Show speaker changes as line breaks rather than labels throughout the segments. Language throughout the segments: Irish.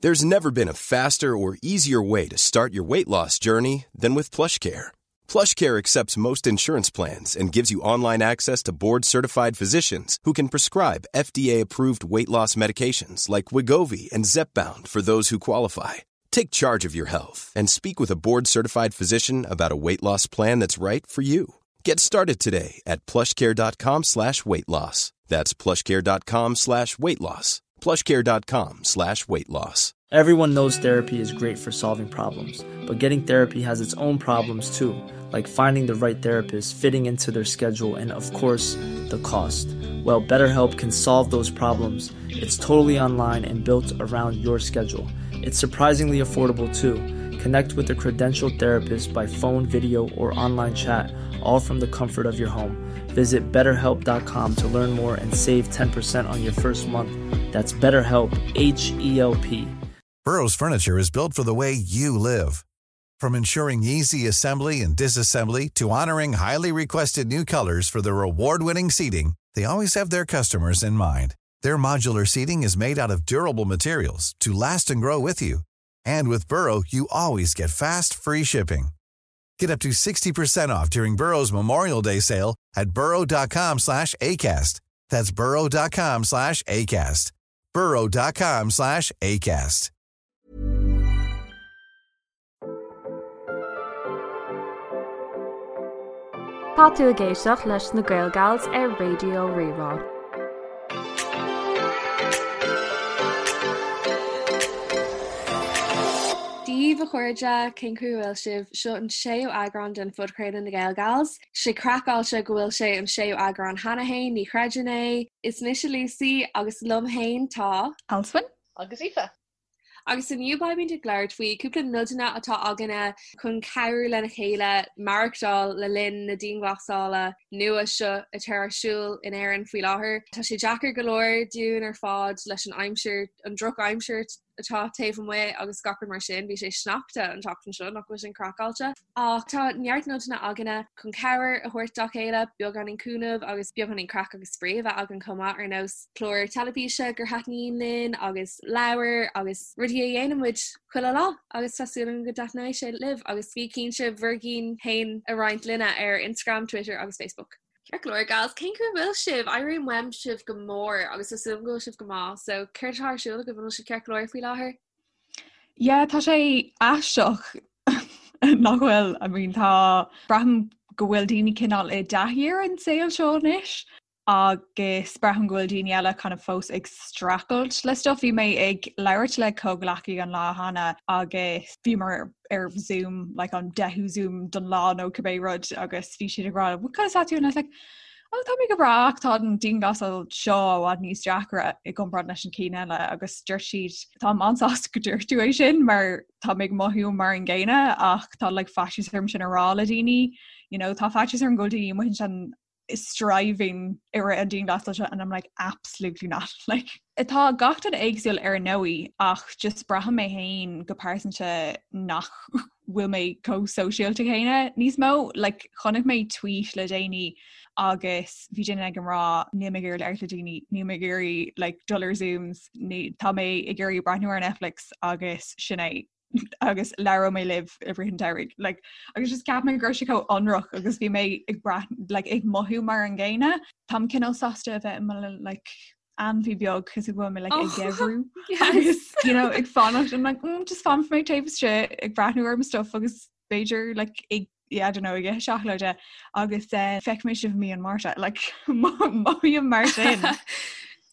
There's never been a faster or easier way to start your weight loss journey than with PlushCare. PlushCare accepts most insurance plans and gives you online access to board-certified physicians who can prescribe FDA-approved weight loss medications like Wegovy and Zepbound for those who qualify. Take charge of your health and speak with a board-certified physician about a weight loss plan that's right for you. Get started today at plushcare.com slash weight loss. That's plushcare.com slash weight loss. plushcare.com slash weight loss.
Everyone knows therapy is great for solving problems, but getting therapy has its own problems too, like finding the right therapist, fitting into their schedule, and of course, the cost. Well, BetterHelp can solve those problems. It's totally online and built around your schedule. It's surprisingly affordable too. Connect with a credentialed therapist by phone, video, or online chat, all from the comfort of your home. Visit betterhelp.com to learn more and save 10% on your first month. That's BetterHelp, H E L P.
Burrow's furniture is built for the way you live. From ensuring easy assembly and disassembly to honoring highly requested new colors for their award-winning seating, they always have their customers in mind. Their modular seating is made out of durable materials to last and grow with you. And with Burrow, you always get fast, free shipping. Get up to 60% off during Burrow's Memorial Day sale at burrow.com slash ACAST. That's burrow.com slash ACAST. burrow.com slash ACAST.
Tá tú ag éisteacht leis na Gael Gals ar Raidió Rí-Rá.
Dia daoibh a chairde, cén chaoi a bhfuil sibh? Seo an séú eagrán den phodchraoladh Na Gael Gals. Sé craiceáilte go bhfuil sé an séú eagrán cheana féin, ní chreidim é! Is mise Lucy agus liom féin tá.
Alswyn.
Agus Aoife.
Agus inniu beimid ag labhairt faoi cúpla nodanna atá againne chun cabhrú lena chéile maireachtáil le linn na dianghlasála nua seo atá ar siúl in Éirinn faoi láthair. Tá sé deacair go leor dúinn ar fad leis an aimsir, an drochaimsir atá taobh amuigh agus gach rud mar sin. Bhí sé sneachta an tseachtain seo, nach bhfuil sin craiceáilte? Ach tá neart nodanna againne chun cabhair a thabhairt dá chéile, beagáinín cúnamh agus beagáinín craic agus spraoi a bheith againn chomh maith, ar nós clár teilifíse gur thaitníonn linn agus leabhair agus rudaí a dhéanann muid chuile lá agus tá súil agam go dtaitneoidh sé libh agus bí cinnte bhur gcinn féin a roinnt linne ar Instagram, Twitter agus Facebook. Ceart go leor, gals, cén chaoi a bhfuil sibh? Airím uaim sibh go mór agus tá súil agam go bhfuil sibh go maith, so céard atá ar siúl agaibh, an bhfuil sibh ceart go leor faoi láthair?
Yeah, tá sé aisteach nach bhfuil, I mean tá, braithim go bhfuil daoine cineál i dtaithí ar an saol seo anois agus braithim go bhfuil daoine eile kind of fós ag streachailt le stuff. Bhí mé ag labhairt le comhghleacaí an lá cheana agus bhíomar ar Zoom, like an deichiú Zoom don lá nó cibé rud agus bhí siad ag rá, what kind of tú? And I was like, oh, tá mé go breá ach tá an dianghlasáil seo i bhfad níos deacra i gcomparáid leis an cinn eile agus dúirt siad táim an-sásta go dúirt tú é sin mar tá mé ag mothú mar an gcéanna ach tá like faitíos orm sin a rá le daoine you know tá faitíos orm go bhfuil daoine amuigh ansin striving i rith an dianghlasáil seo and I'm like absolutely not like Tá gach duine éagsúil ar ndóigh ach just braithim mé féin go pearsanta nach bhfuil mé chomh sóisialta céanna níos mó. Like, chonaic mé tweet le déanaí agus bhí duine ag rá níl mé ag iarraidh labhairt le daoine, níl mé ag iarraidh like, dul ar Zooms, ní, tá mé ag iarraidh breathnú ar Netflix agus sin é. agus labhróidh mé libh i rith an tsamhraidh. Like, agus just ceap mé go raibh sé chomh ionraic agus bhí mé ag brath, like, ag mothú mar an gcéanna. Táim cineál sásta a bheith i mo like, ainmhí beag cos go bhfuil mé like, ag oh, geimhriú agus you know, ag fanacht I'm like, mm, just fanfaidh mé taobh istigh ag breathnú ar mo stuff agus b'fhéidir like, ag yeah, I don't know, ag ithe seacláide agus uh, feicfidh mé sibh mí an Márta like, mothaím mar sin.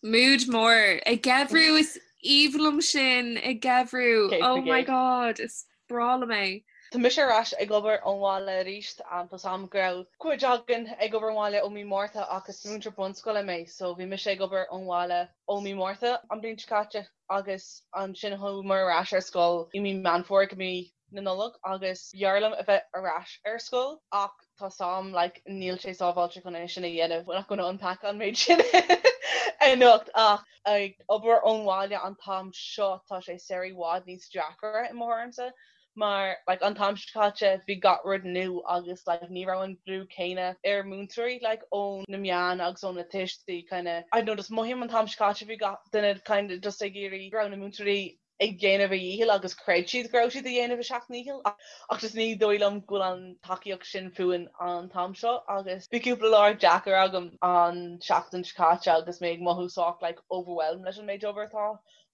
Mood mór ag geimhriú is aoibhinn liom sin ag geimhriú. Oh my god, is breá liom é.
Tá mise ar ais ag obair ón bhaile arís. Tá 's a'm go raibh cuid againn ag obair ón bhaile ó mí Márta ach is múinteoir bunscoile mé so bhí mise ag obair ón bhaile ó mí Márta an bhliain seo caite agus ansin chuamar ar ais ar scoil i mí Meán Fómhair go mí na Nollag agus b'fhearr liom a bheith ar ais ar scoil ach tá 's a'm like níl sé sábháilte chun é sin a dhéanamh, we're not gonna unpack an méid sin anocht ach ag obair ón bhaile an t-am seo tá sé sórt i bhfad níos deacra i mo thuairimse mar like an t-am seo caite bhí gach rud nua agus like ní raibh an brú céanna ar múinteoirí like ó na meáin agus ó na tuistí kind of I don't know just mothaím an t-am seo caite bhí gach duine kind of just ag iarraidh go raibh na múinteoirí. ag déanamh a dhícheall agus chreid siad go raibh siad ag déanamh a seacht ndícheall ach just ní dóigh liom go bhfuil an tacaíocht sin fúinn an t-am seo agus bhí cúpla lá deacair agam an seachtain seo caite agus mé ag mothú sách like overwhelmed leis an méid obair atá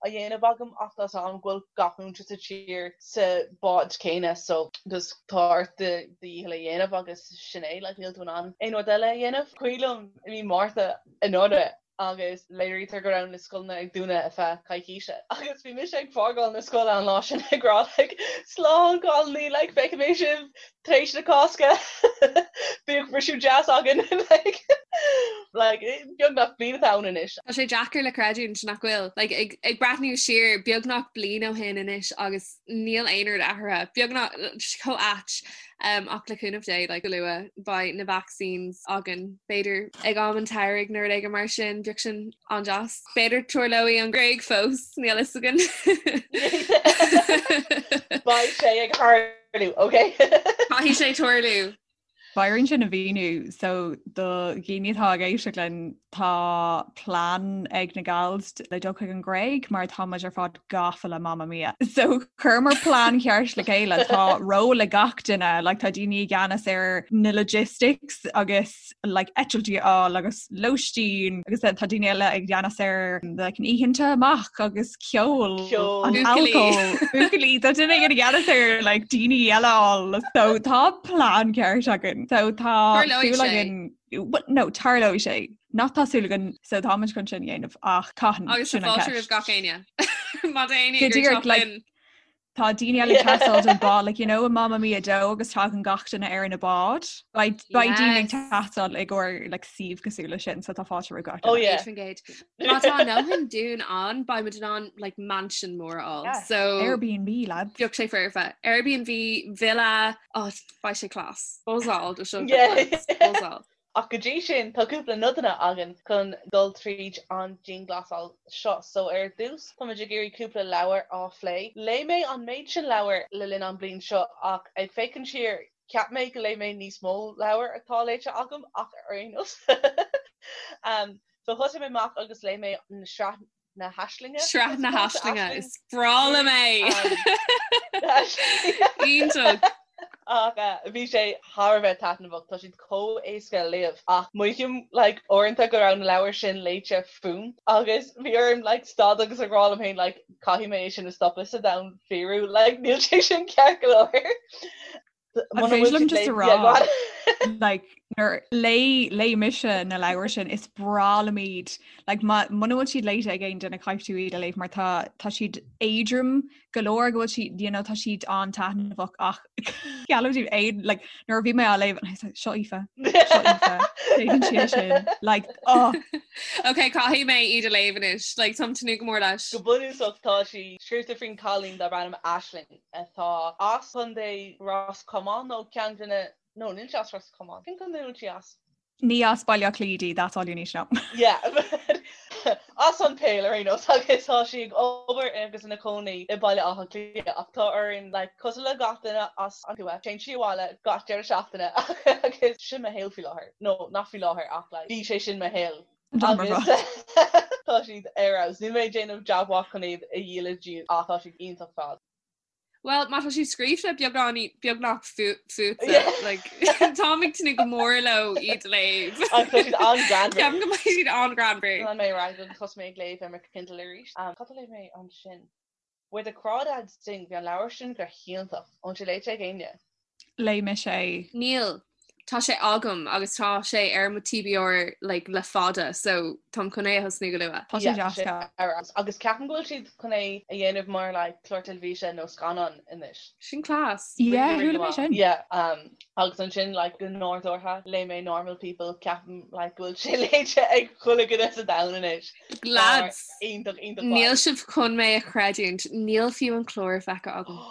á dhéanamh agam ach tá 's agam go bhfuil gach múinteoir sa tír sa bád céanna so just tá ort do dhícheall a dhéanamh agus sin é like níl tú in ann aon rud eile a dhéanamh. Cuimhin liom i mí Márta anuraidh agus léirítear go raibh na scoileanna ag dúnadh ar feadh coicíse agus bhí mise ag fágáil na scoile an lá sin ag rá like slán cailíní like feicfidh mé sibh tar éis na Cásca bíodh briseadh deas againn like like beagnach bliain atá ann anois.
Tá sé deacair le creidiúint nach bhfuil like ag ag breathnú siar beagnach bliain ó shin anois agus níl aon rud athraithe beagnach chomh ait Ach le cúnamh Dé, like, go luath, beidh na vaccines againn. B'fhéidir ag am an tsamhraidh nó rud éigin mar sin, bheadh sin an-deas. B'fhéidir tarlóidh an Ghréig fós, níl fhios againn.
Beidh sé ag tarlú, ok?
Caithfidh sé tarlú.
Beidh orainn sin a mhíniú, so do dhaoine atá ag éisteacht linn tá plean ag na gals le dul chuig an Ghréig mar tá muid ar fad gafa le Mamma Mia. So chuireamar plean ceart le chéile tá ról ag gach duine, like tá daoine i gceannas ar na logistics agus like eitiltí a fháil agus lóistín agus then tá daoine eile i gceannas ar like an oícheanta amach agus ceol an alcól buachaillí tá duine i gceannas ar like daoine eile a fháil so tá plean ceart againn so tá súil againn no tarlóidh sé nach tá súil againn so táimid chun sin a dhéanamh ach cathain
agus
sin an
fáilte roimh gach éinne má tá éinne
Go díreach, like, Tá daoine eile ag teastáil don bád, like, you know, i Mamma Mia 2 agus tagann gach duine ar na báid. Beidh beidh daoine ag teastáil i gcomhair like, suíomh cosúil leis sin, so tá fáilte roimh gach
Oh,
duine.
yeah.
100%. Má tá a ndóthain dúinn ann, beidh muid in ann like, mansion mór a fháil.
Yeah.
So
Airbnb, lads.
bheadh sé foirfe. Airbnb, villa, oh, beidh sé class. Buzzáil do seo.
Yeah.
Buzzáil.
Ach go dtí sin, tá cúpla nodanna againn chun dul tríd an dianghlasáil seo. So ar dtús, táimid ag iarraidh cúpla leabhar á phlé. Léigh mé an méid sin leabhar le linn an bliain seo ach ag féachaint siar, cheap mé go léigh mé níos mó leabhar atá léite agam ach ar aon nós. So thosaigh mé amach agus léigh mé na sraith na hAislinge.
Sraith na hAislinge, is breá liom é! Iontach!
Ach bhí sé thar a bheith taitneamhach, tá siad chomh éasca a léamh ach mothaím like uaireanta go raibh na leabhair sin léite fúm agus bhí orm like stad agus a rá liom féin like caithfidh mé é sin a stopadh sa domhan fíorúil like níl sé sin ceart go leor.
An féidir liom just a rá like nuair léigh léigh mise na leabhair sin is breá liom iad like muna bhfuil siad léite ag aon duine caithfidh tú iad a léamh mar tá tá siad éadrom go leor go bhfuil siad you know tá siad an-taitneamhach ach geallaim daoibh aon like nuair a bhí mé á léamh and I was like, seo Aoife seo Aoife Déanann sí é sin like oh
Ok caithfidh mé iad a léamh anois like táim ag tnúth go mór leis.
Go bunúsach tá sí scríofa faoin cailín darb ainm Aisling. atá as Contae Ros Comáin nó ceann de na, no, níl sí as Ros Comáin. Cén contae a bhfuil sí as?
Ní as Baile Átha Cliath di, that's all you need to know.
Yeah, as an Pale ar aon nós agus tá sí ag obair agus ina cónaí i Baile Átha Cliath ach tá orainn, like, cosúil le gach duine as an tuath, téann sí abhaile gach deireadh seachtaine agus sin mo shaol faoi láthair. No, nach faoi láthair ach like, bhí sé sin mo shaol. Agus tá siad ar fheabhas. Níl mé ag déanamh jab mhaith chun iad a dhíol daoibh ach tá siad iontach fad.
Well, má tá siad scríofa beagán beagnach fútsa, like, táim ag tnúth go mór leo iad a léamh.
Agus tá siad an-ghreannmhar.
Ceapaim go mbeidh siad an-ghreannmhar.
Lean mé ar aghaidh agus thosaigh mé ag léamh ar mo Kindle arís. Cad a léigh mé ansin? Where the Crawdads Sing, bhí an leabhar sin go hiontach. An bhfuil sé léite ag éinne?
Léigh mise é.
Níl. Tá sé agam agus tá sé ar mo TBR like le fada so táim chun é a thosnú go luath.
Tá sé deas.
Ar fheabhas. Agus ceapaim go bhfuil siad chun é a dhéanamh mar like clár teilifíse nó scannán anois.
Sin class.
Yeah, chuala mé sin.
Yeah, agus ansin like go nádúrtha léigh mé Normal People, ceapaim like go bhfuil sé léite ag chuile dhuine sa domhan anois.
Lads,
Iontach, iontach maith.
níl sibh chun mé a chreidiúint, níl fiú an clár feicthe agam.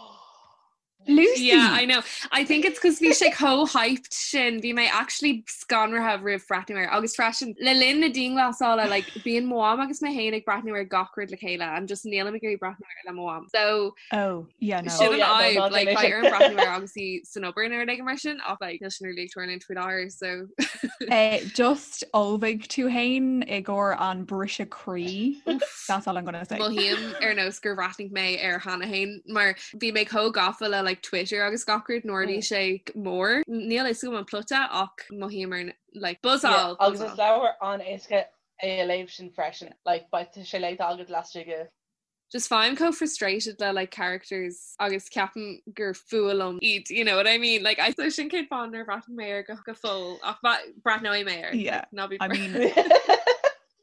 Lucy!
Yeah, I know. I think it's cos bhí sé chomh hyped sin, bhí mé actually scanraithe roimh breathnú air. Agus freisin, le linn na dianghlasála, like, bíonn mo mham agus mé féin ag breathnú ar gach rud le chéile and just nílim ag iarraidh breathnú air le mo mham. So,
Oh, yeah, no.
sin
Oh,
an
yeah, no,
fhadhb,
ná
like,
déan é
beidh
sin.
orm breathnú air agus í san obair nó rud éigin mar sin, ach like, níl sin really ag tarlúint faoi láthair, so.
Just ullmhaigh tú fhéin i gcomhair an briseadh croí. That's all I'm gonna say.
Mothaím ar nós gur bhreathnaigh mé air cheana féin mar bhí mé chomh gafa le like Twitter agus gach rud nuair a bhí sé mór. Níl a fhios agam an plota ach mothaím ar like buzzáil.
Agus is leabhar an-éasca é a léamh sin freisin. Like beidh sé léite agat laistigh de
Just faighim chomh frustrated le like characters agus ceapaim gur fuath liom iad, you know what I mean? Like I so sin cén fáth nár bhreathnaigh mé air go go fóill ach breathnóidh mé air.
Yeah.
Ná bí
I mean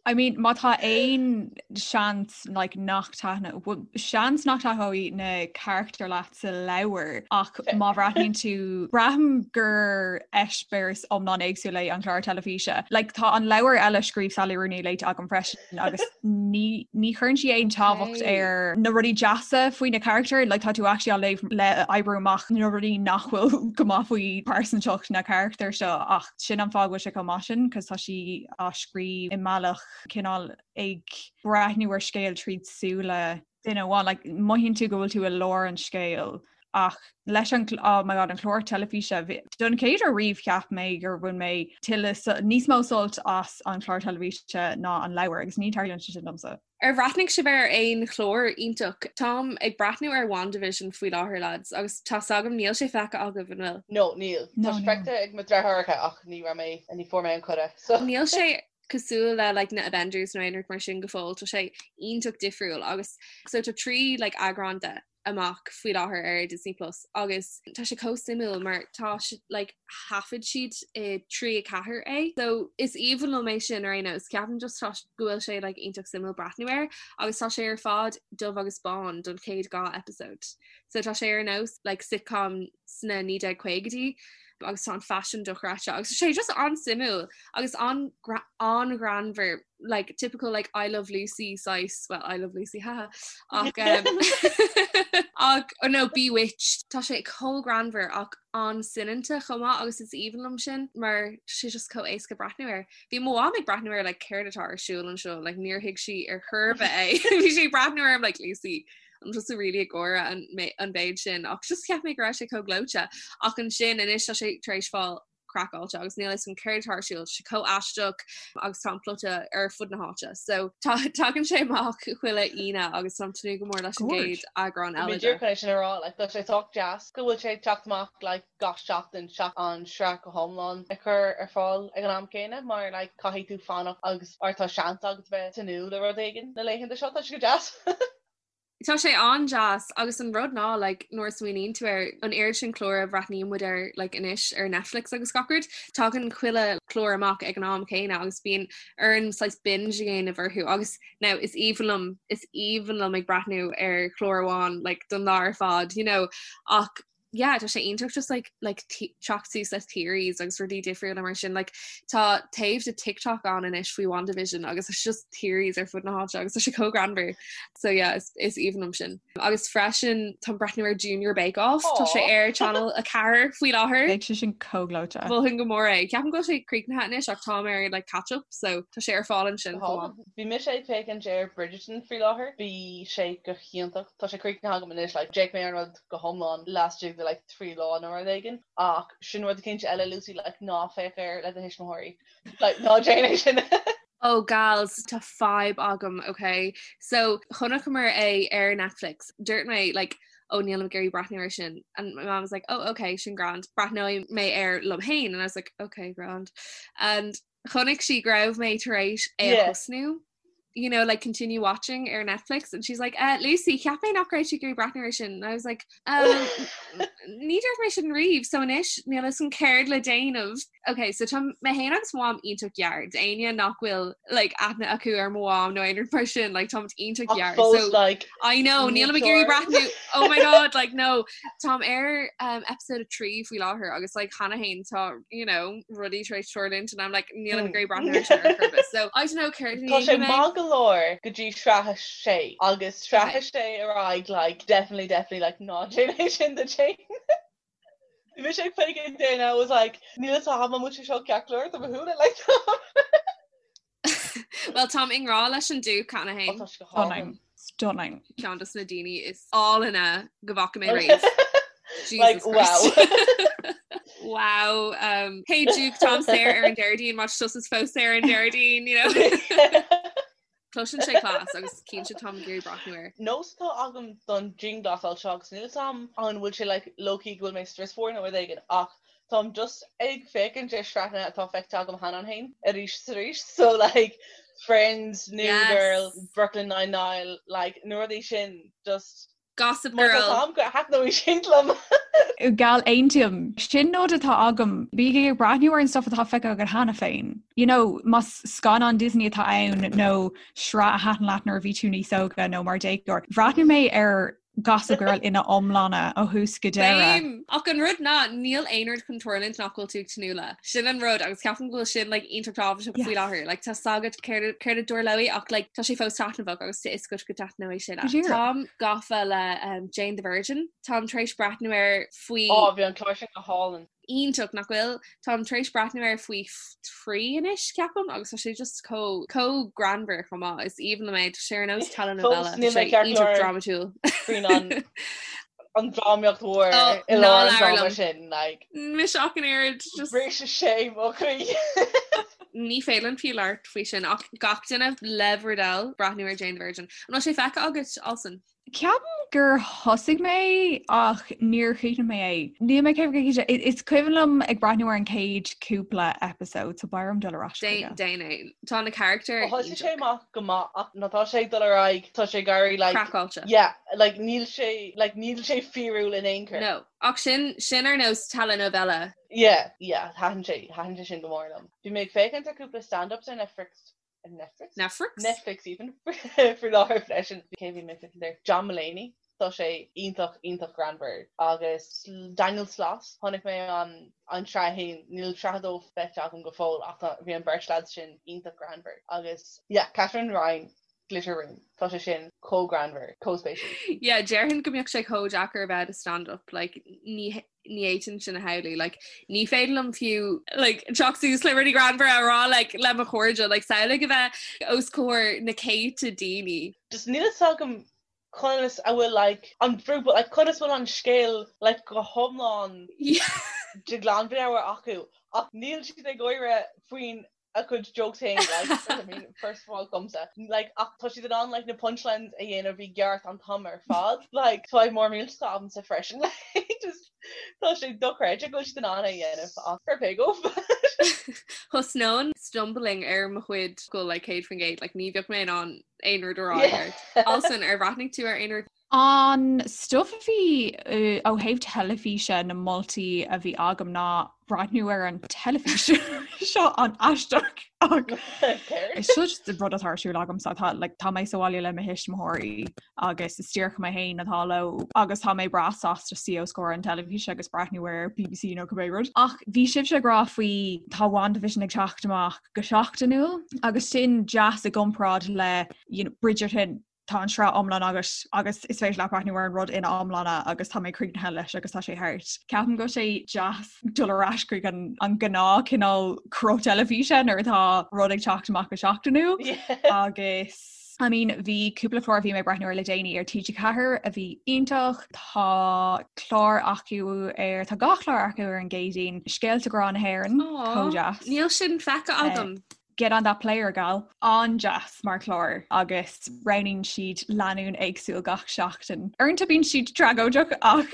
I mean má tá aon seans like nach taitne well, seans nach taitneoidh na carachtair leat sa leabhar ach má bhreathnaíonn tú braithim gur eispéireas iomlán éagsúil é an clár teilifíse. Like tá an leabhar eile a scríobh Sally Rooney léite agam freisin. agus ní ní chuireann sí aon tábhacht ar na rudaí deasa faoi na carachtair, like tá tú actually á léamh le oibriú amach na rudaí nach bhfuil go maith faoi pearsantacht na carachtar seo ach sin an fáth go bhfuil sé chomh maith sin cos tá sí á scríobh i mbealach cineál ag breathnú ar scéal tríd súile duine amháin, like mothaíonn tú go bhfuil tú i lár an scéil ach leis an oh my god an clár teilifíse don chéad uair riamh cheap mé gur bhain mé tuilleadh níos mó sult as an chlár teilifíse ná an leabhar agus ní tarlaíonn sé sin domsa.
Ar bhreathnaigh sibh ar aon chlár iontach? Táim ag breathnú ar WandaVision faoi láthair lads agus tá's agam níl sé feicthe agaibh, an bhfuil?
No, níl. Tá sé feicthe ag mo deartháireacha ach ní raibh mé, ní fuair mé an cuireadh
so. Níl sé cosúil le like na Avengers nó aon rud mar sin go fóill, tá sé iontach difriúil agus so tá 3 like eagrán de amach faoi láthair ar Disney Plus agus tá sé chomh suimiúil mar tá like thaifead siad i 3 4 é. So is aoibhinn liom é sin ar aon nós ceapaim just tá go bhfuil sé like iontach suimiúil breathnú air agus tá sé ar fad dubh agus bán don chéad 2 episode. So tá sé ar nós like sitcom sna 1950idí agus tá an faisean dochreidte agus tá sé just an-suimiúil agus an an-ghreannmhar like typical like I Love Lucy saghas well I Love Lucy haha ach um, ach oh no Bewitched tá sé chomh greannmhar ach an-soineanta chomh maith agus is aoibhinn liom sin mar sé just chomh éasca breathnú air. Bhí mo mham ag breathnú air like céard atá ar siúl anseo like níor thuig sí ar chor ar bith é bhí sí ag breathnú orm like Lucy an tusa really ag gáire an an mhéid sin ach just cheap mé go raibh sé chomh gleoite ach ansin anois tá sé tar éis fáil craiceáilte agus níl a fhios agam céard atá ar siúl sé chomh aisteach agus tá an plota ar fud na háite so tá tagann sé amach chuile Aoine agus táim ag tnúth go mór leis an gcéad eagrán eile de.
Chun é sin a rá like tá sé sách deas go bhfuil sé ag teacht amach like gach seachtain seachas an sraith go hiomlán a chur ar fáil ag an am céanna mar like caithfidh tú fanacht agus or tá seans agat bheith ag tnúth le rud éigin na laethanta seo tá sé go deas.
Tá sé an-deas agus an rud ná like nuair a smaoiníonn tú ar an oiread sin clár a bhreathnaíonn muid air like anois ar Netflix agus gach rud, tagann chuile chlár amach ag an am céanna agus bíonn orainn saghas binge a dhéanamh orthu agus now is aoibhinn liom is aoibhinn liom ag breathnú ar chlár amháin like don lá ar fad you know ach yeah tá sé iontach just like like teacht suas le theories agus rudaí difriúla mar sin like tá taobh de TikTok ann anois faoi WandaVision agus it's just theories ar fud na háite agus tá sé chomh greannmhar so yeah is, is aoibhinn liom sin. Agus freisin táim ag breathnú ar Junior Bake Off tá sé ar Channel 4 faoi láthair.
Beidh sé sin chomh gleoite.
Mholfainn go mór é. Ceapaim go bhfuil sé críochnaithe anois ach táim ar like catch up so tá sé ar fáil ansin chomh maith.
Bhí mise ag féachaint ar Bridgerton faoi láthair. Bhí sé go hiontach. Tá sé críochnaithe agam anois like d'fhéach mé ar an rud go hiomlán laistigh de like 3 lá nó rud éigin ach sin rud eicínt eile Lucy like ná féach air le do thuismitheoirí like ná déan é sin.
Oh gals tá fadhb agam ok so chonaiceamar é ar Netflix dúirt mé like oh nílim ag iarraidh breathnú air sin and my mom was like oh ok sin grand breathnóidh mé air liom féin and I was like ok grand and chonaic sí go raibh mé tar éis é a thosnú you know, like continue watching ar Netflix and she's like, uh, Lucy, cheap mé nach raibh tú ag iarraidh breathnú air sin. And I was like, um, ní dúirt mé sin riamh, so anois níl a fhios agam céard le déanamh. Ok, so tá mé féin agus mo mham iontach gearr. D'éinne nach bhfuil like, aithne acu ar mo mham nó aon rud mar sin, like, táimid iontach gearr. So,
like,
I know, nílim ag iarraidh breathnú. Oh my god, like, no. Táim ar um, episode 3 faoi láthair agus like, cheana féin tá, you know, rudaí tar éis tarlúint and I'm like, nílim ag iarraidh breathnú air sin ar chor ar bith. So, I don't know céard a
Tá sé maith go leor go dtí sraith a sé agus sraith a sé ar aghaidh like, definitely, definitely like, ná déan é sin duit féin. Bhí mise ag féachaint air and I was like, níl a fhios agam an bhfuil sé seo ceart go leor do mo shúile like
Well táim i ngrá leis an Duke cheana féin.
Tá sé go hálainn.
Stunning.
Ceann de na daoine is álainne go bhfaca mé riamh.
Like
Jesus Christ.
wow.
Wow um, hey Duke táim saor ar an Déardaoin má tá tusa fós saor ar an Déardaoin you know. Cloiseann sé class agus cinnte táim ag iarraidh breathnú air.
Nós atá agam don dianghlasáil seo agus níl 'fhios a'm an bhfuil sé like low-key go bhfuil mé strusmhar nó rud éigin ach táim just ag féachaint ar shraitheanna atá feicthe agam cheana féin arís is arís so like Friends, New Girl, Brooklyn Nine-Nine like na rudaí sin just
Gossip Girl.
Má tá thaitneoidh sin liom.
Gal aontaím. Sin nod atá agam. Bígí ag breathnú ar an stuff atá feicthe agat cheana féin. You know, más scannán Disney atá ann nó sraith a thaitin leat nuair a bhí tú níos óga nó mar déagóir. Bhreathnaigh mé ar Gossip Girl ina iomláine ó thús go deireadh.
Same! Ach an rud ná, níl aon rud chun tarlúint nach bhfuil tú ag tnúth le. Sin an rud agus ceapaim go bhfuil sin like iontach tábhachtach faoi láthair. Like tá 's agat céard céard a dtarlóidh ach like tá sé fós taitneamhach agus tá 'fhios agat go dtaitneoidh sé leat. Táim gafa le um, Jane the Virgin. Táim tar éis breathnú air faoi
Ó, bhí an clár sin go hálainn.
iontach nach bhfuil? Táim tar éis breathnú air faoi thrí anois ceapaim agus tá sé just chomh chomh greannmhar chomh maith. Is aoibhinn liom é tá sé ar nós telenovela.
Fós níl mé ceart
iontach drámatúil.
Faoin an an drámaíocht mhór i lár an dráma sin like.
Mise ach an oiread
just. Bhris sé mo chroí.
Ní féidir liom fiú labhairt faoi sin ach gach duine le bhur dtoil breathnú ar Jane the Virgin. An bhfuil sé feicthe agat Alison?
Ceapaim gur thosaigh mé ach níor chríochnaigh mé é. Níl mé céad cinnte. Is cuimhin liom ag breathnú ar an chéad cúpla episode so beidh orm dul ar ais
chuige. Déan é. Tá na carachtair
Thosaigh sé amach go maith ach nuair atá sé ag dul ar aghaidh tá sé ag éirí like
Craiceáilte.
yeah like níl sé like níl sé fíorúil in aon chor.
No. Ach sin sin ar nós telenovela.
Yeah yeah thaitin sé thaitin sé sin go mór liom. Bhí mé ag féachaint ar cúpla stand-ups ar Netflix Netflix?
Netflix?
Netflix even faoi láthair freisin. Cé bhí mé ag féachaint air? John Mulaney. Tá sé iontach iontach greannmhar. Agus Daniel Sloss, chonaic mé an an sraith a haon, níl sraith a dó feicthe agam go fóill ach tá bhí an bheirt lads sin iontach greannmhar. Agus yeah, Katherine Ryan, Glitter Room, tá sé sin chomh greannmhar, chomh spéisiúil.
Yeah, déarfainn go mbeadh sé chomh deacair a bheith i do stand-up, like ní ní fhéadfainn sin a shamhlú like ní féidir liom fiú like teacht suas le rudaí greannmhara a rá like le mo chairde like samhlaigh a bheith os comhair na céadta daoine.
Just níl fhios agam conas a bhfuil like an brú but like conas bhfuil an scéal like go hiomlán de ghlanmheabhair acu ach níl siad ag gáire faoin a gcuid jokes féin like I mean first of all domsa like ach tá siad in ann like na punchlines a dhéanamh i gceart an t-am ar fad like tá mór millteach agamsa freisin like just tá sé dochreidte go bhfuil siad in ann é a dhéanamh ach fair play dóibh.
Thosnóinn stumbling ar mo chuid go like 100% like ní bheadh mé in ann aon rud a rá ceart. Alison ar bhreathnaigh tú ar aon rud?
An stuff a bhí ó thaobh teilifíse na moltaí a bhí agam ná breathnú ar an teilifís seo an-aisteach ach seo just rud atá ar siúl agamsa tá like, tá mé sa bhaile le mo thuismitheoirí agus is díreach mé féin atá leo agus tá mé breá sásta suí os comhair an teilifíse agus breathnú ar BBC nó cibé rud. Ach bhí sibhse ag rá faoi tá WandaVision ag teacht amach go seachtainiúil agus sin deas i gcomparáid le you know, Bridgerton tá an sraith iomlán agat agus is féidir leat breathnú ar an rud ina iomláine agus tá mé críochnaithe leis agus tá sé thart. Ceapaim go bhfuil sé deas dul ar ais chuig an an gnáth cineál cruth teilifíse nuair atá rud ag teacht amach go seachtainiúil agus I mean bhí cúpla clár a bhí mé ag breathnú ar le déanaí ar TG4 a bhí iontach, tá clár acu ar tá dhá chlár acu ar an gCéadaoin, Scéalta Grá na hÉireann, chomh deas.
Níl sin feicthe agam.
Get on that player gal. An-deas mar chlár agus roghnaíonn siad lánúin éagsúil gach seachtain. Uaireanta bíonn siad tragóideach ach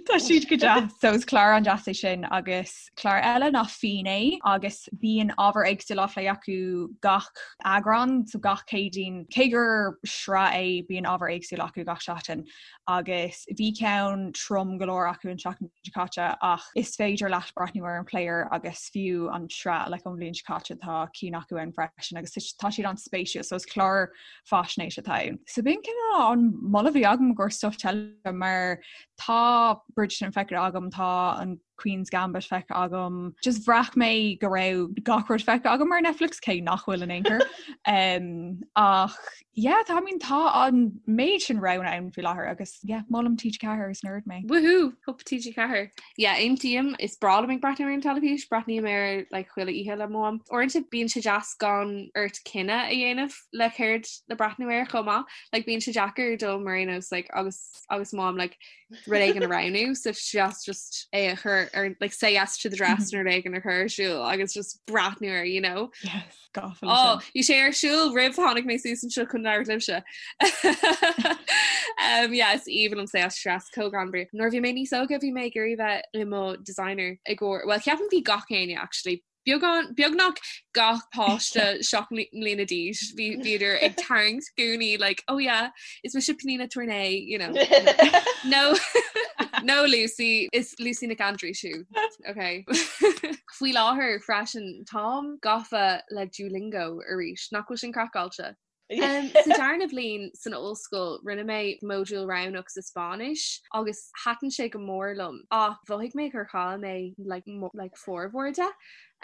tá siad go deas. So is clár an-deas é sin agus clár eile ná Fínné agus bíonn ábhar éagsúil á phlé acu gach eagrán, so gach Céadaoin. Cé gur sraith é bíonn ábhar éagsúil acu gach seachtain. agus bhí ceann trom go leor acu an tseachtain seo caite ach is féidir leat breathnú ar an player agus fiú an sraith like ón bhliain seo caite tá cinn acu ann freisin agus tá siad an-spéisiúil so is clár faisnéise atá ann. So b'in cineál an moladh a bhí agam i gcomhair stuff teilifíse mar tá Bridgerton feicthe agam tá an Queen's Gambit feicthe agam. Just bhraith mé go raibh gach rud feicthe agam ar Netflix cé nach bhfuil in aon chor. Um, ach yeah, tá I mean, tá an méid sin roghanna ann faoi láthair agus yeah, molaim TG4 is nerd mé.
Woohoo! Hup TG4. Yeah, aontaím, is breá liom ag breathnú ar an teilifís, breathnaím air like, chuile oíche le mo mham. Uaireanta bíonn sé deas gan ort cinneadh a dhéanamh le céard le breathnú air chomh maith. Like, bíonn sé deacair dom mar aon nós like, agus agus mo mham like, rud éigin a roghnú so deas just é a chur ar like say yes to the dress nó rud éigin a chur ar siúl agus just breathnú air, you know.
Yes, gafa
Oh, bhí sé ar siúl roimh tháinig mé suas anseo chun labhairt libhse. um, yeah, is aoibhinn liom say yes to the dress chomh greannmhar. Nuair a bhí mé níos óige bhí mé ag iarraidh bheith i mo designer i gcomhair, well ceapaim bhí gach éinne actually Beagán, beagnach gach páiste 7 mbliana d'aois, bhí bhíodar ag tarraingt gúnaí like, oh yeah, is mise Pnina Tornay, you know. No, no Lucy, is Lucy Nic Aindreis thú, okay. Faoi láthair freisin, táim gafa le Duolingo arís, nach bhfuil sin craiceáilte? Sa darna bliain san ollscoil rinne mé modúl roghnach sa Spáinnis agus thaitin sé go mór liom ach mhothaigh mé gur chaill mé like, like formhór de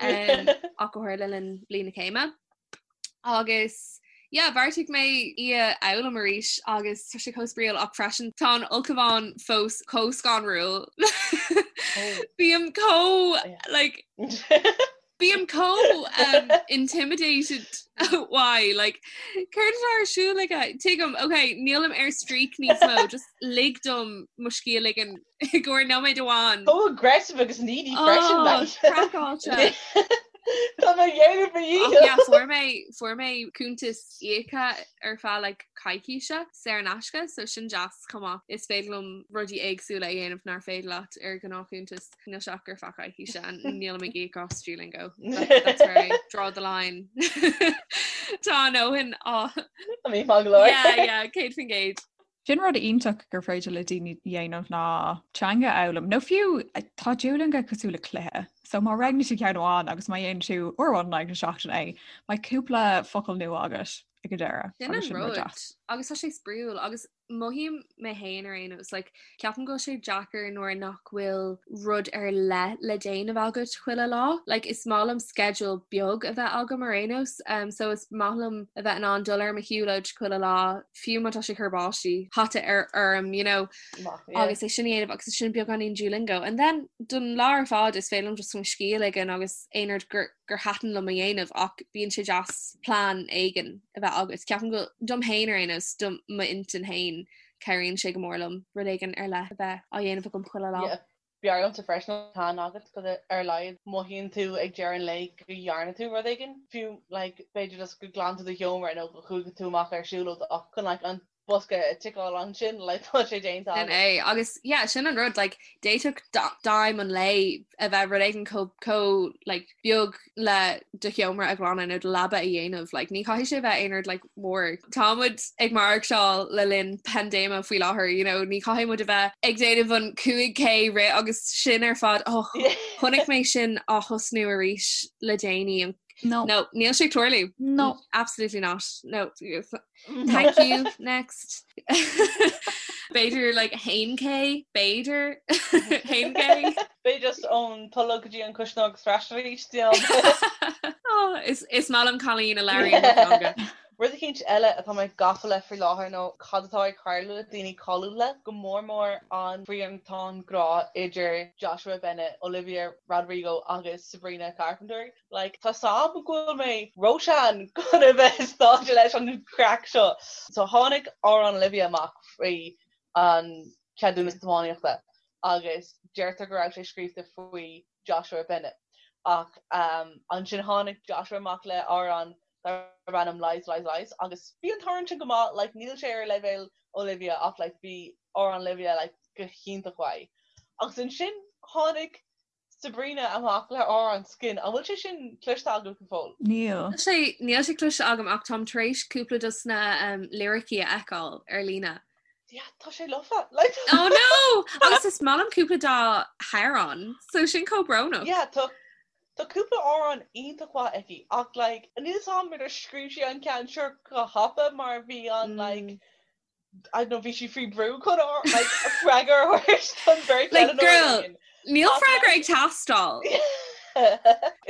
ach go háirithe le linn bliain na céime. Agus yeah, bheartaigh mé í a fhoghlaim arís agus tá sé chomh spraíúil ach freisin tá an ulchabhán fós chomh scanrúil. Bím chomh like Bím chomh um, intimidated why like céard atá ar siúl aige tuigim ok nílim ar streak níos mó just lig dom mo scíth a ligean i gcomhair nóiméad amháin.
Chomh aggressive agus needy freisin
Oh, craiceáilte.
Tá mé ag déanamh mo
Ach
dhícheall.
yeah, fuair mé fuair mé cuntas íoctha ar feadh like coicíse saor in aisce so sin deas chomh maith. Is féidir liom rudaí éagsúla a dhéanamh nár féidir leat ar ghnáthchuntas. Níl sé ach ar feadh coicíse and nílim ag íoc as Duolingo. That's where I draw the line. Tá a ndóthain á.
I mean, maith go leor.
Yeah, yeah, 100%.
Sin rud iontach gur féidir le daoine dhéanamh ná teanga a fhoghlaim. Nó fiú tá Duolingo cosúil le cluiche. So má roghnaíonn tú ceann amháin agus má dhéanann tú uair amháin in aghaidh na seachtaine é, beidh cúpla focal nua agat ag an deireadh.
Sin
Agus
an
sin rud
rud.
deas.
Agus tá sé spraíúil agus Mothaím mé féin ar aon nós, like, ceapaim go bhfuil sé deacair nuair nach bhfuil rud ar leith le déanamh agat chuile lá. Like, is maith liom schedule beag a bheith agam ar aon nós, um, so is maith liom a bheith in ann dul ar mo shiúlóid chuile lá, fiú má tá sé ag cur báistí hata ar orm, you know,
Maith, yeah.
agus é sin a dhéanamh agus sin beagáinín Duolingo. And then don lá ar fad is féidir liom just mo scíth a ligean agus aon rud gur gur thaitin liom a dhéanamh ach bíonn sé deas plean éigin a bheith agat. Ceapaim go dom féin ar aon nós, do m'intinn féin, cabhraíonn sé go mór liom rud éigin ar leith a bheith á dhéanamh agam chuile lá.
Yeah. B'fhearr liomsa freisin an plean agat cos ar a laghad mothaíonn tú ag deireadh an lae go dhearna tú rud éigin, fiú like b'fhéidir just go glan tú do sheomra nó go chuaigh tú amach ar siúlóid ach chun like an bosca a ticeáil ansin like tá sé déanta
Sin é agus yeah sin an rud like d'fhéadfadh d'aidhm an lae a bheith rud éigin chomh chomh like beag le do sheomra a ghlanadh nó do leaba a dhéanamh like ní chaithfidh sé bheith aon rud like mór. Tá muid ag maireachtáil le linn paindéime faoi láthair you know ní chaithfidh muid a bheith ag déanamh an 5K rith agus sin ar fad oh chonaic mé sin á thosnú arís le déanaí an
No.
No, níl sé ag tarlú.
No.
Absolutely not. No. Thank you next B'fhéidir like 1K b'fhéidir 1K
B'fhéidir just ón tolg go dtí an cuisneoir agus ar ais arís
oh, is is maith liom cailín a labhraíonn mo theanga.
Rud eicínt eile atá mé gafa le faoi láthair nó cad atá ag tarlú le daoine cáiliúla, go mór mór an triantán grá idir Joshua Bennett, Olivia Rodrigo agus Sabrina Carpenter. Like, tá 's a'm go bhfuil mé róshean chun a bheith sáite leis an chraic seo. So tháinig amhrán Olivia amach faoi an ceadúnas tiománaíochta agus deirtear go raibh sé scríofa faoi Joshua Bennett. Ach um, ansin tháinig Joshua amach le amhrán darb ainm Lies, Lies, Lies agus bhí an t-amhrán sin go maith, like, níl sé ar leibhéal Olivia ach like, bhí amhrán Olivia like, go hiontach mhaith. Agus ansin tháinig Sabrina amach le amhrán Skin. An bhfuil sé sin cloiste agat go fóill?
Níl.
Níl sé níl sé cloiste agam ach táim tar éis cúpla dos na um, liricí a fheiceáil ar líne.
Yeah, tá sé lofa. Like...
Oh no! Agus is maith liom cúpla dá hamhráin, so sin chomh brónach.
Yeah, tá tá cúpla amhrán iontach mhaith aici ach like níl 'fhios a'm ar scríobh sí an ceann seo go thapa mar bhí an like mm. I don't know, bhí sí faoi brú chun like, freagra a thabhairt don bheirt
Like, girl, níl freagra ag teastáil.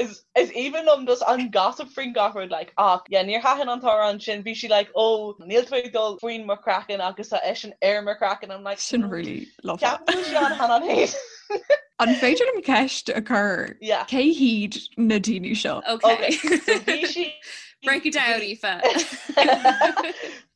Is is aoibhinn liom just an gossip faoin gach rud like ach yeah níor thaitin an t-amhrán sin bhí sí like oh níl tú ag dul faoin mo chraiceann agus tá eisean ar mo chraiceann I'm like
Sin really lofa.
Ceapaim go bhfuil sí an-shean féin.
An féidir liom ceist a chur?
Yeah.
Cé hiad na daoine seo?
Okay.
Okay, so bhí sí
Break it down, Aoife.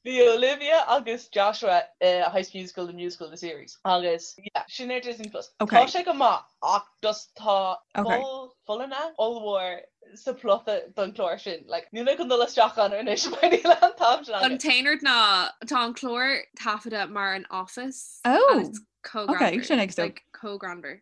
Bhí Olivia agus Joshua i High School Musical, The Musical, The Series agus yeah, sin ar Disney Plus.
Okay.
Tá sé go maith ach just tá
Okay.
poll folláine ollmhór sa plota don chlár sin. Like, níl mé chun dul isteach ann anois mar níl an t-am sin
An
agam.
t-aon rud ná tá an clár taifeadta mar an Office.
Oh,
and it's chomh
okay,
greannmhar.
sin ag so.
Like, chomh greannmhar.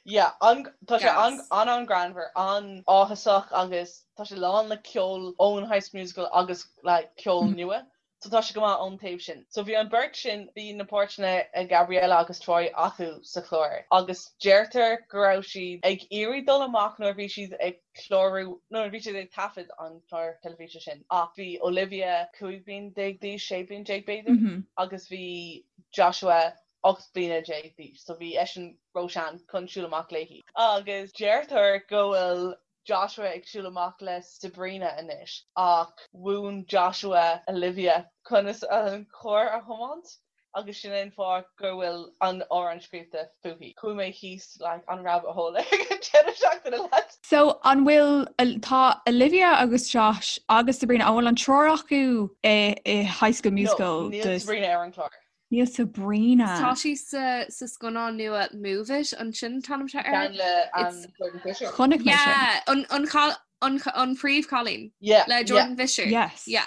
Yeah, an, tá sé an,
Gas.
an an-ghreannmhar, an-áthasach agus tá sé lán le ceol ón High School Musical agus like ceol nua. So tá sé go maith ón taobh sin. So bhí an beirt sin, bhí na páirteanna ag Gabriella agus Troy acu sa chlár agus deirtear go raibh siad ag iarraidh dul amach nuair a bhí siad ag clárú, nuair a bhí siad ag taifead an chlár teilifíse sin ach bhí Olivia 15 bliain d'aois, 16 bliain b'fhéidir, agus bhí Joshua 18 bliana d'aois so bhí eisean róshean chun siúl amach léi. Agus deirtear go bhfuil Joshua ag siúl amach le Sabrina anois ach mhúin Joshua Olivia conas an carr a thiomáint agus sin é an fáth go bhfuil an amhrán scríofa fúithi. Chuaigh mé thíos like an rabbit hole ag an deireadh seachtaine lads.
So an bhfuil, tá Olivia agus Josh agus Sabrina, an bhfuil an triúr acu i i High School Musical?
No, níl Sabrina ar an chlár.
Níl Sabrina.
Tá sí sa sa scannán nua Move It, an sin an t-ainm atá air?
Ceann le an Jordan Fisher.
Chonaic mé sin.
Yeah, an an chal- an an phríomhchailín
Yeah,
le
yeah.
Jordan Fisher.
Yes.
Yeah,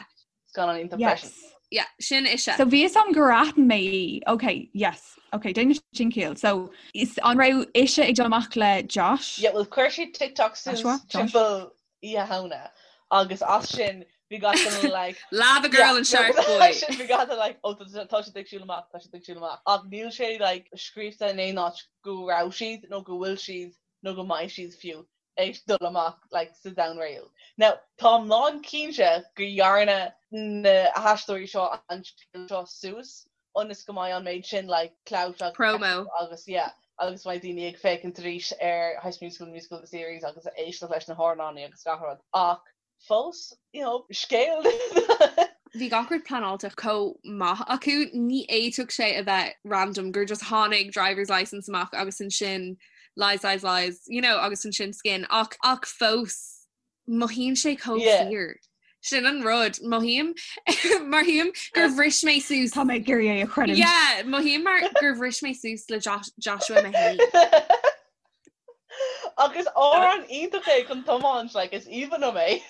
Scannán iontach freisin.
Yes.
yeah, sin ise.
So bhí a fhios agam gur aithin mé í. Ok, yes. Ok, déanann sin ciall. So is an raibh ise ag dul amach le Josh?
Yeah, well chuir sí TikTok suas
Joshua? Josh?
timpeall Oíche Shamhna agus as sin bhí gach duine like
Lava Girl and Shark Boy.
sin bhí gach duine like oh tá tá siad ag siúl amach tá siad ag siúl amach ach níl sé like scríofa in aon áit go raibh siad nó go bhfuil siad nó go mbeidh siad fiú ag dul amach like sa domhan réal. Now táim lán cinnte go dhearna na haisteoirí seo an scéal seo suas ionas go mbeidh an méid sin like clout agus
Promo.
agus yeah agus mbeidh daoine ag féachaint arís ar High School Musical, The Musical, The Series agus ag éisteacht leis na hamhráin agus gach rud ach fós you know scéal
Bhí gach rud pleanáilte chomh maith acu, ní fhéadfadh sé a bheith random gur just tháinig driver's license amach agus ansin lies lies lies you know agus ansin skin ach ach fós Mothaíonn sé chomh fíor. Sin an rud, mothaím mothaím gur bhris mé suas.
Tá mé ag iarraidh é a chreidiúint.
Yeah, mothaím mar gur bhris mé suas le Joshua mé féin.
Agus amhrán iontach é chun tiomáint, like, is aoibhinn liom é.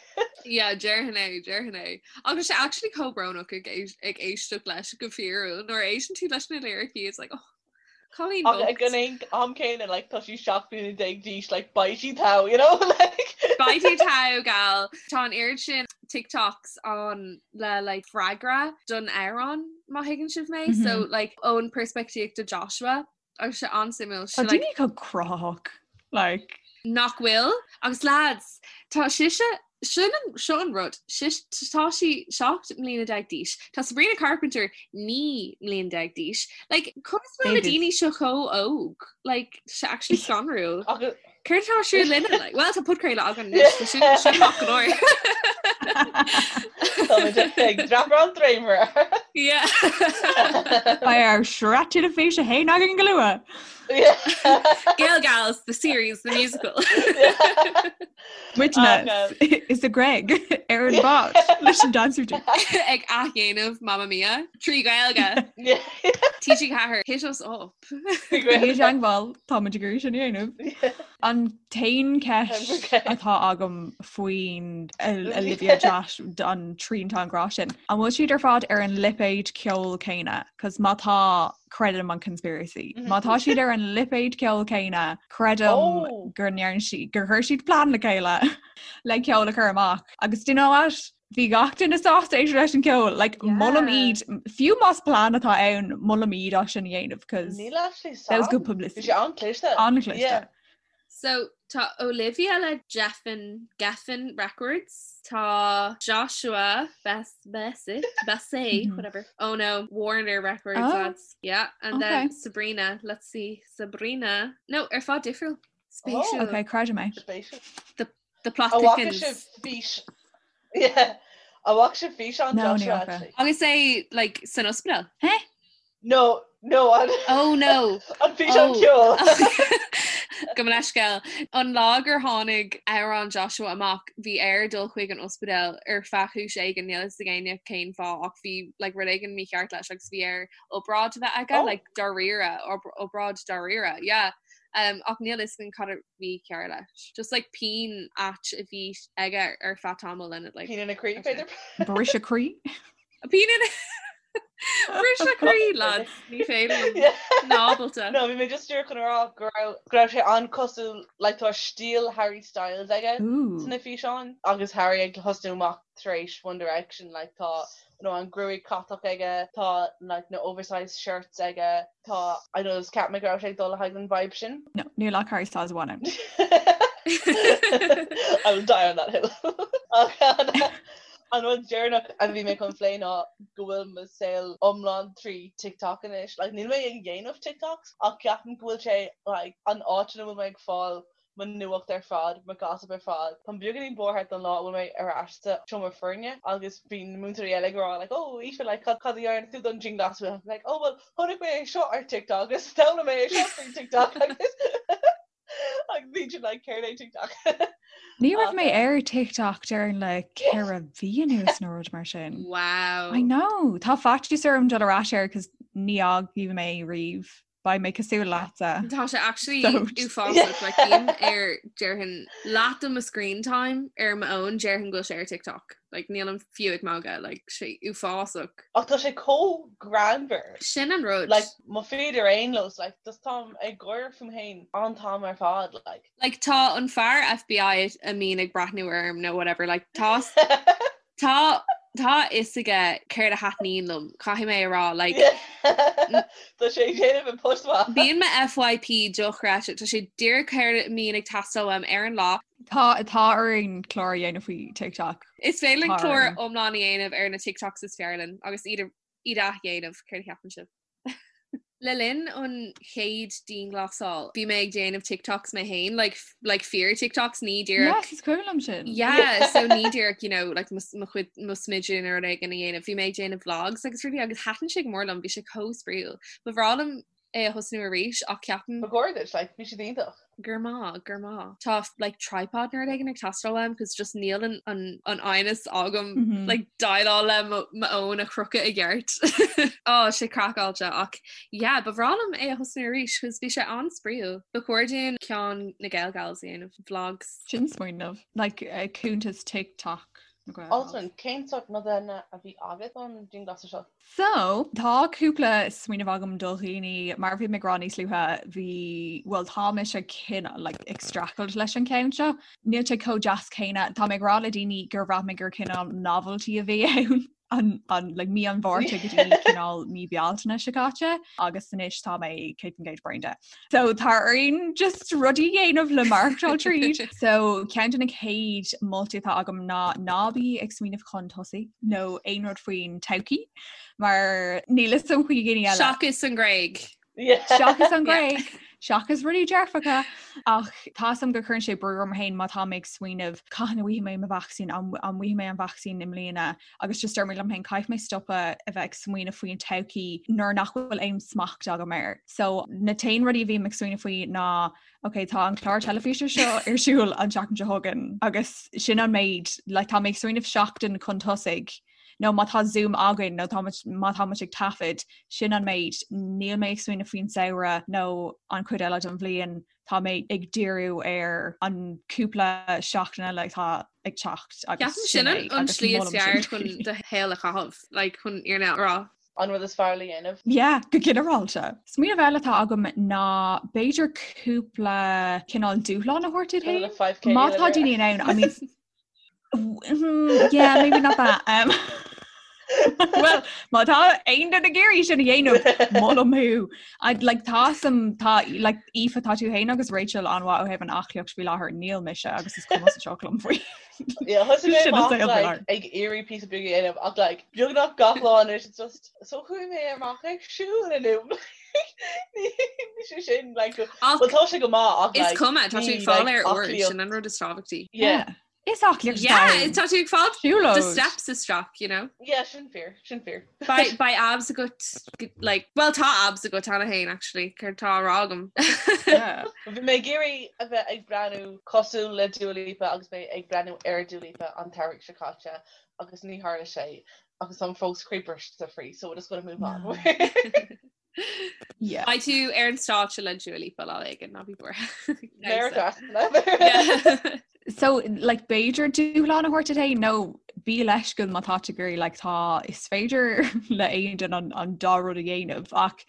Yeah, déarfainn é, déarfainn é. Agus sé actually chomh brónach ag ag éisteacht leis go fíorúil nuair a éisteann tú leis na liricí, it's like, oh, Cailín
Ach ag
bocht.
an am céanna like tá sí 17 bliana d'aois like beidh sí togha you know like.
Beidh tú togha gal. Tá an oiread sin TikToks ann le like freagra don amhrán má thuigeann sibh mé so like ón peirspictíocht de Joshua agus sé an-suimiúil.
Tá
Sé like
daoine chomh cruthaitheach like.
Nach bhfuil? Agus lads, tá sise Sin an, seo an rud, sis, tá sí 17 mbliana d'aois, tá Sabrina Carpenter 19 mbliana d'aois, like, conas bhfuil na
Babies.
daoine seo chomh óg? Like, tá sé actually scanrúil.
Agus
Céard atá ar siúl linne? Like, well, tá podchraoladh againn anois, so sin, sin maith go leor.
Táimid ag dreapadh an dréimire.
Yeah.
Beidh ár sraith teilifíse féin againn go luath.
Gael Gals, the series, the musical.
Muidne is a Greg ar an bád leis an dance routine.
Ag athdhéanamh Mamma Mia trí Ghaeilge. TG4 hit us up.
I dteagmháil táimid ag iarraidh sin a dhéanamh. An t-aon cheist atá agam faoin Olivia Josh an triantán grá sin. An bhfuil siad ar fad ar an lipéad ceoil céanna? Cos má tá creidim an conspiracy. Má tá siad ar an lipéad ceoil céanna, creidim
Oh!
gur ndearna siad, gur chuir siad plean le chéile le ceol a chur amach. Agus do you know what? Bhí gach duine sásta éisteacht leis an ceol. Like, molaim
Yeah.
iad, fiú más plean atá ann, molaim iad as sin a dhéanamh, cos
Níl actually
that was good
sam. Bhí
publicity.
sé an-chliste.
An-chliste.
Yeah.
So tá Olivia le Geffen, Geffen Records, tá Joshua Bess, Bessy, Bessy, whatever. Oh no, Warner Records,
Oh.
lads. Yeah, and then
Okay.
Sabrina, let's see, Sabrina. No, ar fad difriúil. Spéisiúil.
Okay, creidim é.
Spéisiúil.
The plot
An bhfaca
thickens.
sibh fís Yeah. An bhfaca sibh físeán
No, ní
Joshua
fhaca.
actually?
Agus é like san ospidéal.
Hé?
No, no, an
Oh no.
an físeán
Oh.
ceoil.
Gabh mo leithscéal. An lá gur tháinig amhrán Joshua amach, bhí air dul chuig an ospidéal ar feadh chúis éigin, níl a fhios ag éinne cén fáth ach bhí like rud éigin mícheart leis agus bhí air obráid a bheith aige, like dáiríre, obráid dáiríre, yeah. Um, ach níl a fhios againn cad a bhí cearr leis. Just like pian ait a bhí aige ar feadh tamaill and it like
Pian ina chroí, b'fhéidir?
Briseadh croí?
Pian ina Briseadh croí, lads, ní féidir liom. Ná ábalta.
No, bhí mé just díreach chun a rá go raibh go raibh sé an-cosúil like tá stíl Harry Styles aige sna físeáin agus Harry ag tosnú amach tar éis One Direction like tá you know, an gruaig chatach aige, tá like na oversized shirts aige, tá I know just cheap mé go raibh sé ag dul le haghaidh an vibe sin.
No, níl ach Harry Styles amháin ann.
I will die on that hill. Ach an an rud deireanach a bhí mé chun plé ná go bhfuil mo saol iomlán trí TikTok anois. Like, níl mé ag déanamh TikToks ach ceapaim go bhfuil sé like, an áit ina bhfuil mé ag fáil mo nuacht ar fad, mo gossip ar fad. Táim beagáinín buartha don lá a bhfuil mé ar ais sa seomra foirne agus bíonn na múinteoirí eile ag rá like oh Aoife like cad cad a dhearna tú don dianghlasáil? I'm like oh well chonaic mé é seo ar TikTok agus d'fhoghlaim mé é seo faoi TikTok agus agus bíonn siad like céard é TikTok?
Ní raibh mé ar TikTok déarfainn le ceithre mhí anuas nó rud mar sin.
Wow.
I know. Tá faitíos orm dul ar ais air cos ní fhágfaidh mé riamh. Beidh mé cosúil leatsa.
Tá sé actually uafásach like bím ar déarfainn leath de mo screen time ar m'fhón déarfainn go bhfuil sé ar TikTok. Like nílim fiú ag magadh like sé uafásach.
Ach tá sé chomh greannmhar.
Sin an rud.
Like mo feed ar aon nós like just táim ag gáire fúm féin an t-am ar fad like.
Like tá an fear FBI a mbíonn ag breathnú orm nó whatever like tá Tá tá a fhios aige céard a thaitníonn liom, caithfidh mé a rá, like.
Tá sé ag déanamh an post maith.
Bíonn mo FYP dochreidte, tá sé díreach céard a mbíonn ag teastáil uaim ar an lá.
Tá tá orainn clár a dhéanamh faoi TikTok.
Is féidir linn clár iomlán a dhéanamh ar na TikToks is fearr linn agus iad a iad a athdhéanamh, céard a cheapann sibh? Le linn an chéad dianghlasáil, bhí mé ag déanamh TikToks mé féin, like, like fíor TikToks, ní díreach.
Yes, is cuimhin liom sin.
Yeah, so ní díreach, you know, like mo mo chuid mo smideadh nó rud éigin a dhéanamh. Bhí mé ag déanamh vlogs agus rudaí agus thaitin sé go mór liom, bhí sé chomh spraíúil. Ba bhreá liom é a thosnú arís ach ceapaim.
Ba chóir duit, like, bhí siad iontach.
Grma, grma. Tá like tripod nó rud éigin ag teastáil uaim cos just níl an an an fhoighneas agam mm -hmm. like déileáil le mo fhón a chrochadh i gceart. Á sé craiceáilte ach yeah, ba bhreá liom é a thosnú arís cos bhí sé an-spraíúil. Ba chóir dúinn ceann na Gael Gals a dhéanamh vlogs.
Sin smaoineamh like uh, cuntas TikTok.
Altan, cén sórt nodanna a bhí agat don dianghlasáil seo?
So, tá cúpla smaoineamh agam do dhaoine, mar a bhí mé ag rá níos luaithe, bhí, bhuel tá mise cineál like ag streachailt leis an ceann seo. Níl sé chomh deas céanna, tá mé ag rá le daoine gur bhraith mé gur cineál novelty a bhí ann an, an, like mí an Mhárta go dtí cineál mí Bealtaine seo caite agus anois tá mé 100% bréan de. So tá orainn just rudaí a dhéanamh le maireachtáil tríd. So ceann de na chéad moltaí atá agam ná ná bí ag smaoineamh chun tosaigh nó aon rud faoin todhchaí mar níl a fhios agam faoi dhaoine eile.
Seachas an Ghréig.
Seachas an Ghréig, seachas rudaí dearfacha ach tá a fhios agam go gcuireann sé brú orm féin má tá mé ag smaoineamh cathain a bhfaighidh mé mo vacsaín an bhfaighidh mé an vacsaín i mbliana agus just deir mé liom féin caithfidh mé stopadh a bheith ag smaoineamh faoin todhchaí nuair nach bhfuil aon smacht agam air. So na t-aon rudaí a bhím ag smaoineamh faoi ná ok tá an clár teilifíse seo ar siúl an tseachtain seo chugainn agus sin an méid like, tá mé ag smaoineamh seachtain chun tosaigh nó má tá Zoom againn nó tá má tá muid ag taifead sin an méid níl mé ag smaoineamh faoin samhradh nó an chuid eile den bhliain tá mé ag díriú ar an cúpla seachtain eile atá ag teacht
agus Ceapaim sin an slí is fearr chun do shaol a chaitheamh, like chun fhírinne a rá.
An rud is fearr le dhéanamh.
Yeah, go ginearálta. Smaoineamh eile atá agam ná b'fhéidir cúpla cineál dúshlán a thabhairt duit féin. Má tá daoine in ann, I mean, Yeah, maybe not that. Um, well, má tá aon duine ag iarraidh sin a dhéanamh molaim thú. I'd like tá some tá like Aoife tá tú féin agus Rachel an-mhaith ó thaobh an aclaíocht faoi láthair níl mise agus is cuma sa tsioc liom faoi.
Yeah, thosaigh mé amach like, ag iarraidh píosa beag a dhéanamh ach like, beagnach gach lá anois it's just so chuaigh mé amach ag siúl inniu. Ní sé sin like, well tá sé go maith ach
Is cuma tá sé fáil ar uair sin an rud is tábhachtaí.
Yeah.
Is aclaíocht
Yeah, ann. tá tú ag fáil Siúlóid. do steps isteach, you know.
Yeah, sin fíor, sin fíor.
Beidh beidh abs agat like, well tá abs agat cheana féin actually, céard tá á rá agam.
Yeah.
Bhí mé ag iarraidh a bheith ag breathnú cosúil le Dua Lipa agus mé ag breathnú ar Dua Lipa an t-earrach seo caite agus ní tharla sé agus táim fós croíbhriste faoi so we're just gonna move on.
Yeah.
Beidh tú ar an stáitse le Dua Lipa lá éigin, ná bí buartha.
Merry
So like b'fhéidir dúshlán a thabhairt duit féin nó bí leisciúil má tá tú ag iarraidh like tá is féidir le aon duine an, an dá rud a dhéanamh ach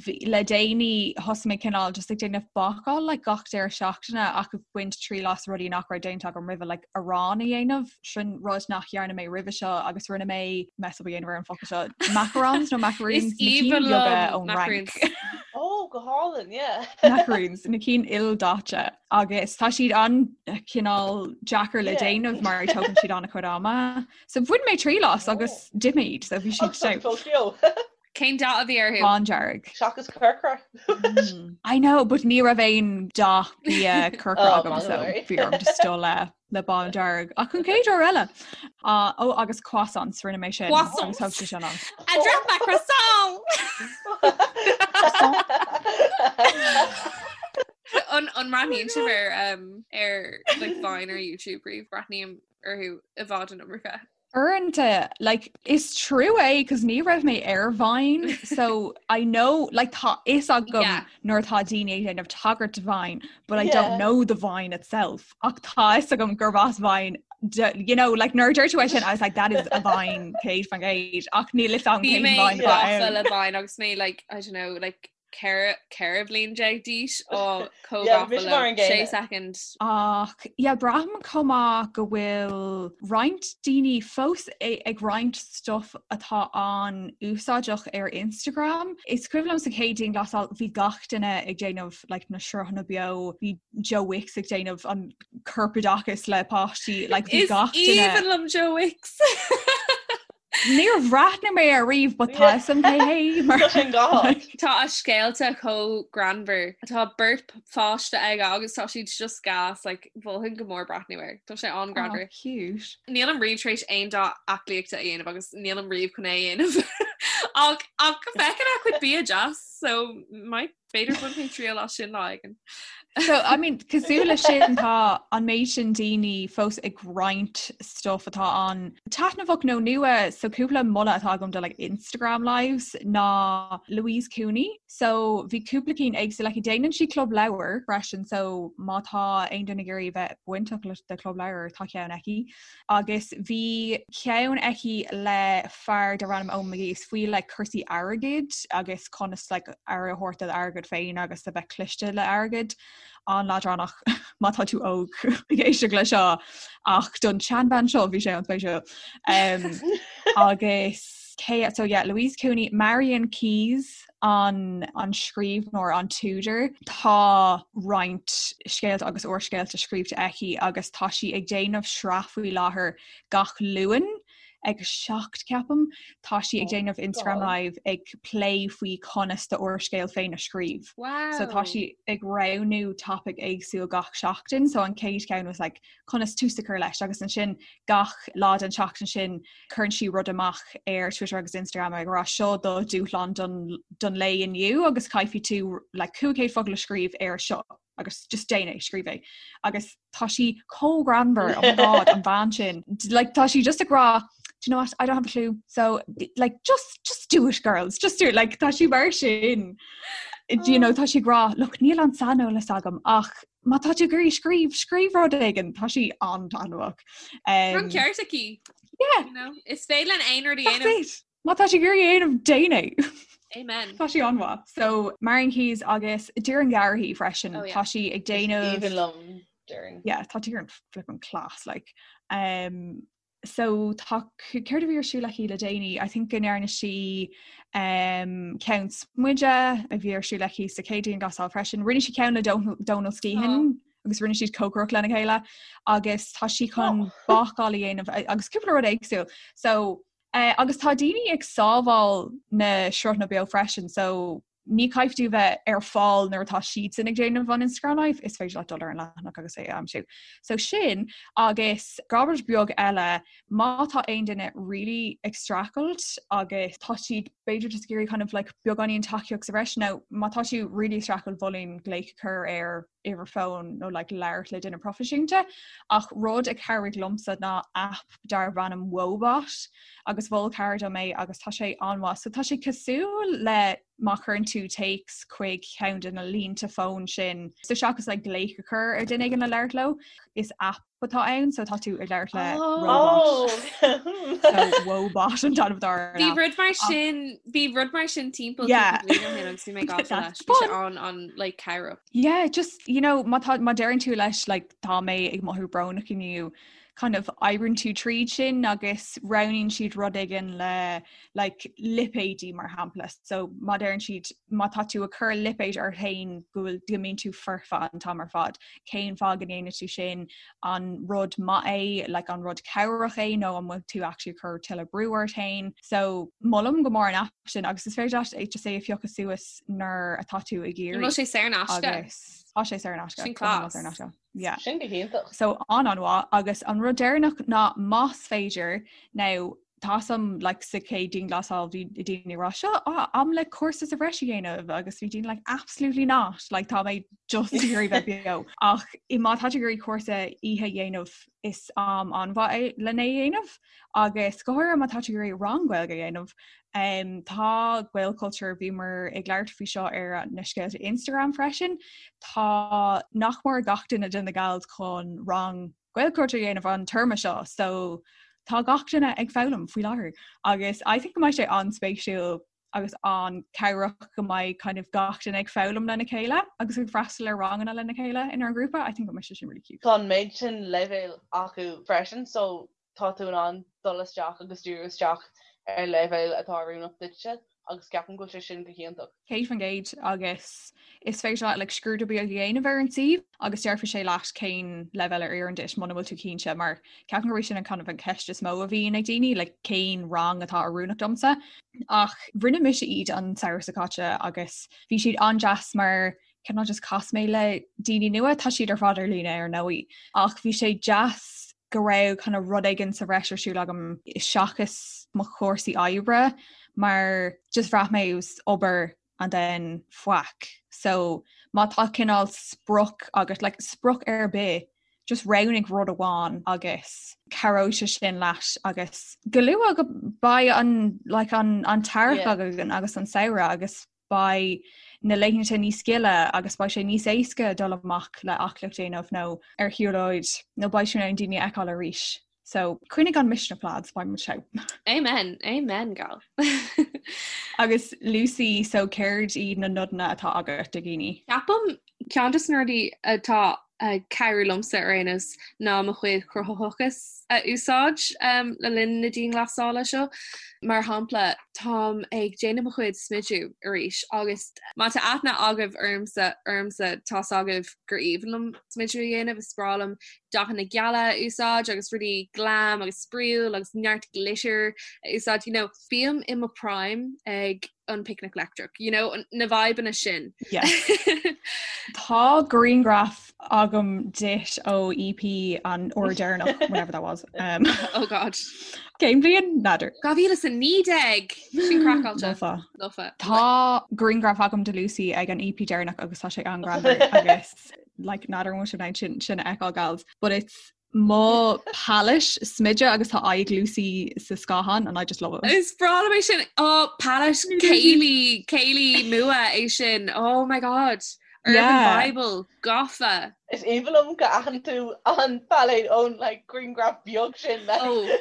bhí- le déanaí thosaigh mé cineál just ag déanamh bácáil like gach deireadh seachtaine ach ag baint triail as rudaí nach raibh déanta agam roimhe like arán a dhéanamh sin rud nach dhearna mé roimhe seo agus rinne mé mess up a dhéanamh ar an focal seo macarons nó macaroons
Is
na cinn
aoibhinn
beaga
liom
ón Fhrainc.
macaroons.
Oh, go hálainn, yeah.
Macaroons na cinn ildaite agus tá siad an-chineál deacair le
Yeah.
déanamh mar tógann siad an-chuid ama. So bhain mé triail as agus d'ith mé iad so bhí siad
Agus tá
so
fós beo.
Cén dath a bhí orthu?
Bándearg.
Seachas corcra.
I know, but ní raibh aon dath bia corcra
Oh,
agam so
maith.
bhí orm just dul le le bándearg. Ach an chéad uair eile. Ah, ó agus croissants rinne mé sin.
Croissants.
Agus thóg sé sin an.
I dropped my croissant! An an mbreathnaíonn sibh ar um, ar like, Vine ar YouTube riamh breathnaím orthu i bhfad an iomarca.
Uaireanta, like, is trua é cos ní raibh mé ar Vine, so I know, like, tá fhios agam
Yeah.
nuair atá daoine ag déanamh tagairt do Vine, but I
Yeah.
don't know the Vine itself. Ach tá fhios agam gurb as Vine, d- you know, like, nuair a dúirt tú é sin, I was like, that is a Vine, 100%, ach níl fhios agam
Bhí
cén
mé
Vine atá
gafa
ann.
le Vine agus mé like, I don't know, like 14 bhliain d'aois á
Yeah,
chomh
bhí mar an
sé
gcéanna.
second.
Ach yeah, braithim chomh maith go bhfuil roinnt daoine fós ag roinnt stuff atá an-úsáideach ar Instagram. Is cuimhin liom sa chéad dianghlasáil bhí gach duine ag déanamh like, na sruthanna beo, bhí Joe Wicks ag déanamh an corpoideachas le páistí, like, bhí
Is
gach duine
aoibhinn liom Joe Wicks.
Níor bhreathnaigh mé air riamh but tá fhios agam cé hé mar
Tá sin go
Tá a scéalta chomh greannmhar. Tá beirt pháiste aige agus tá siad just gas like, mholfainn go mór breathnú air. Tá sé an-ghreannmhar.
Oh, cute.
Nílim riamh tar éis aon dá aclaíochta a dhéanamh agus nílim riamh chun é a dhéanamh. Ach ach feiceann a chuid bia deas, so might B'fhéidir bainfidh mé triail as sin lá éigin.
So I mean cosúil leis sin tá an méid sin daoine fós ag roinnt stuff atá an-taitneamhach nó nua so cúpla moladh atá agam do like Instagram lives ná Louise Cooney so bhí cúpla cinn éagsúil aici déanann sí club leabhar freisin so má tá aon duine ag iarraidh bheith bainteach le de club leabhar tá ceann aici Agus bhí ceann aici le fear darb ainm Eoin McGee is faoi like cúrsaí airgid agus conas like aire a thabhairt do d'airgead féin agus a bheith cliste le airgead. An-leadránach má tá tú óg ag éisteacht le seo ach don tseanbhean seo bhí sé an-spéisiúil. Um, agus cé so yeah, Louise Cooney, Marian Keyes an an scríbhneoir an t-údar. Tá roinnt scéalta agus úrscéalta scríobhta aici agus tá sí ag déanamh sraith faoi láthair gach Luan ag 7 ceapaim. Tá sí ag déanamh Instagram Live ag plé faoi conas d'úrscéal féin a scríobh.
Wow.
So tá sí ag roghnú topic éagsúil gach seachtain, so an chéad cheann was like conas tús a chur leis agus ansin gach lá den tseachtain sin cuireann sí rud amach ar Twitter agus Instagram ag rá seo do dúshlán don, don lae inniu agus caithfidh tú like, 500 focal a scríobh ar seo agus just déan é scríobh é agus tá sí chomh greannmhar oh my god an bhean sin like tá sí just ag rá do you know what I don't have a clue so like just just do it girls just do it like tá sí mar sin do you know tá sí ag rá look níl an saineolas agam ach má tá tú ag iarraidh scríobh, scríobh rud éigin, tá sí an-taitneamhach.
Tá an ceart aici.
Yeah.
You know, is féidir linn aon rud a
That's
dhéanamh.
it. Má tá tú ag iarraidh a dhéanamh, déan é.
Amen.
Tá sí an-mhaith. So Marian Keyes agus Doireann Garrihy freisin,
Oh, yeah.
tá sí ag déanamh
Aoibhinn liom Doireann.
Yeah, tá Doireann flippin' class like. Um, So tá céard a bhí ar siúl aici le déanaí? I think go ndearna sí um, ceann smididh a bhí ar siúl aici sa chéad dianghlasáil freisin. Rinne sí ceann le Donal Skehan oh. agus rinne siad cócaireacht lena chéile agus tá sí chun oh. bácáil a dhéanamh agus cúpla rud éagsúil. So uh, agus tá daoine ag sábháil na sruthanna beo freisin, so Ní caithfidh tú bheith ar fáil nuair atá siadsan ag déanamh an Instagram Live, is féidir leat dul ar an leathanach agus é a aimsiú. So sin agus rud beag eile má tá aon duine really ag streachailt agus tá siad b'fhéidir just ag iarraidh kind of like beagáinín tacaíocht sa bhreis nó má tá tú really ag streachailt mholfainn glaoch a chur ar uimhir fóin nó like labhairt le duine proifisiúnta ach rud a chabhraigh liomsa ná app darb ainm Woebot agus mhol cara dom é agus tá sé an-mhaith. So tá sé cosúil le má chuireann tú téacs chuig ceann de na línte fóin sin so seachas like glaoch a chur ar duine éigin le labhairt leo is app atá ann so tá tú ag labhairt le
oh.
So Woebot an t-ainm atá ar an
Bhí
app.
rud mar sin bhí rud mar sin timpeall
Yeah.
cúpla bliain ó shin agus bhí mé gafa
That's
leis. Bhí sé
fun.
an an like cabhrach.
Yeah, just you know má tá má deireann tú leis like tá mé ag mothú brónach inniu kind of oibríonn tú tríd sin agus roghnaíonn siad rud éigin le like lipéidí mar shampla. So má deireann siad má tá tú ag cur lipéid ort féin go bhfuil go mbíonn tú foirfe an t-am ar fad. Cén fáth go ndéanann tú sin an rud maith é, like an rud cabhrach é nó an bhfuil tú actually ag cur tuilleadh brú ort féin. So molaim go mór an app sin agus is féidir leat é just é a phiocadh suas nuair atá tú ag
An bhfuil
iarraidh
sé saor in aisce?
agus tá sé saor in aisce.
Sin
Go hiomlán
class.
saor in aisce. Yeah.
Sin go hiontach.
So an an-mhaith agus an rud deireanach ná más féidir now tá a fhios agam like sa chéad dianghlasáil bhí daoine ag rá seo ah, am le cúrsa sa bhreis a dhéanamh agus bhí daoine like absolutely not like tá mé just ag iarraidh bheith beo ach i má tá tú ag iarraidh cúrsa oíche a dhéanamh is am an-mhaith é lena dhéanamh agus go háirithe má tá tú ag iarraidh rang Gaeilge a dhéanamh um, tá Gaelchultúr bhíomar ag labhairt faoi seo ar na scéalta Instagram freisin tá nach mór gach duine de na gals chun rang Gaelchultúr a dhéanamh an téarma seo so tá gach duine ag foghlaim faoi láthair agus I think go mbeidh sé an-spéisiúil agus an-chabhrach go mbeidh kind of gach duine ag foghlaim lena chéile agus ag freastal ar ranganna lena chéile inár ngrúpa. I think go mbeidh sé sin really cute.
Tá an méid sin leibhéal acu freisin so tá tú in ann dul isteach agus díriú isteach ar leibhéal atá oiriúnach duitse agus ceapaim go bhfuil sé sin go hiontach.
100% agus is féidir leat like, scrúdú beag a dhéanamh ar an suíomh agus déarfaidh sé leat cén leibhéal a oireann duit muna bhfuil tú cinnte mar ceapaim gurb é sin an kind of an ceist is mó a bhíonn ag daoine like, cén rang atá oiriúnach domsa. Ach rinne mise iad an samhradh seo caite agus bhí siad an-deas mar cineál just chas mé le daoine nua tá siad ar fad ar líne ar ndóigh ach bhí sé deas go raibh kind of rud éigin sa bhreis ar siúl agam seachas mo chúrsaí oibre mar just bhraith mé it was obair and then faic. So má tá cineál sprioc agat like sprioc ar bith just roghnaigh rud amháin agus cabhróidh sé sin leat agus go luath go beidh an like an an t-earrach
Yeah.
againn agus an samhradh agus beidh na laethanta níos gile agus beidh sé níos éasca dul amach le aclaíocht a dhéanamh nó ar shiúlóid nó beidh tú in ann daoine a fheiceáil arís. So coinnigh an misneach lads, beidh muid togha.
Amen, amen gal.
Agus Lucy, so céard iad na nodanna atá agat do dhaoine?
Ceapaim Ceann de na rudaí atá ag cabhrú liomsa ar aon nós ná mo chuid cruthaitheachas a úsáid le linn na dianghlasála seo. Mar shampla, táim ag déanamh mo chuid smidiú arís agus má tá aithne agaibh ormsa ormsa tá's agaibh gur aoibhinn liom smidiú a dhéanamh, is breá liom dathanna geala a úsáid agus rudaí glam agus spraíúil agus neart glitter a úsáid. You know, bím i mo prime ag an Picnic Leictreach, you know, na vibeanna sin.
Yes. Tá grianghraf agam duit ó EP an uair deireanach, whenever that was. Um,
oh God.
Cén bhliain? N'fheadar.
2019! Sin craiceáilte.
Lofa.
Lofa.
Tá grianghraf agam de Lucy ag an EP deireanach agus tá sé an-ghreannmhar agus like n'fheadar an bhfuil sibh in ann sin sin a fheiceáil gals, but it's mo palette smididh agus tá aghaidh Lucy sa scáthán and I just love it.
Is breá liom é sin oh palette céilí céilí nua é sin oh my god Urban
Yeah.
Bible gafa.
Is aoibhinn liom go aithin tú an palette ón like grianghraf beag sin like.
Oh.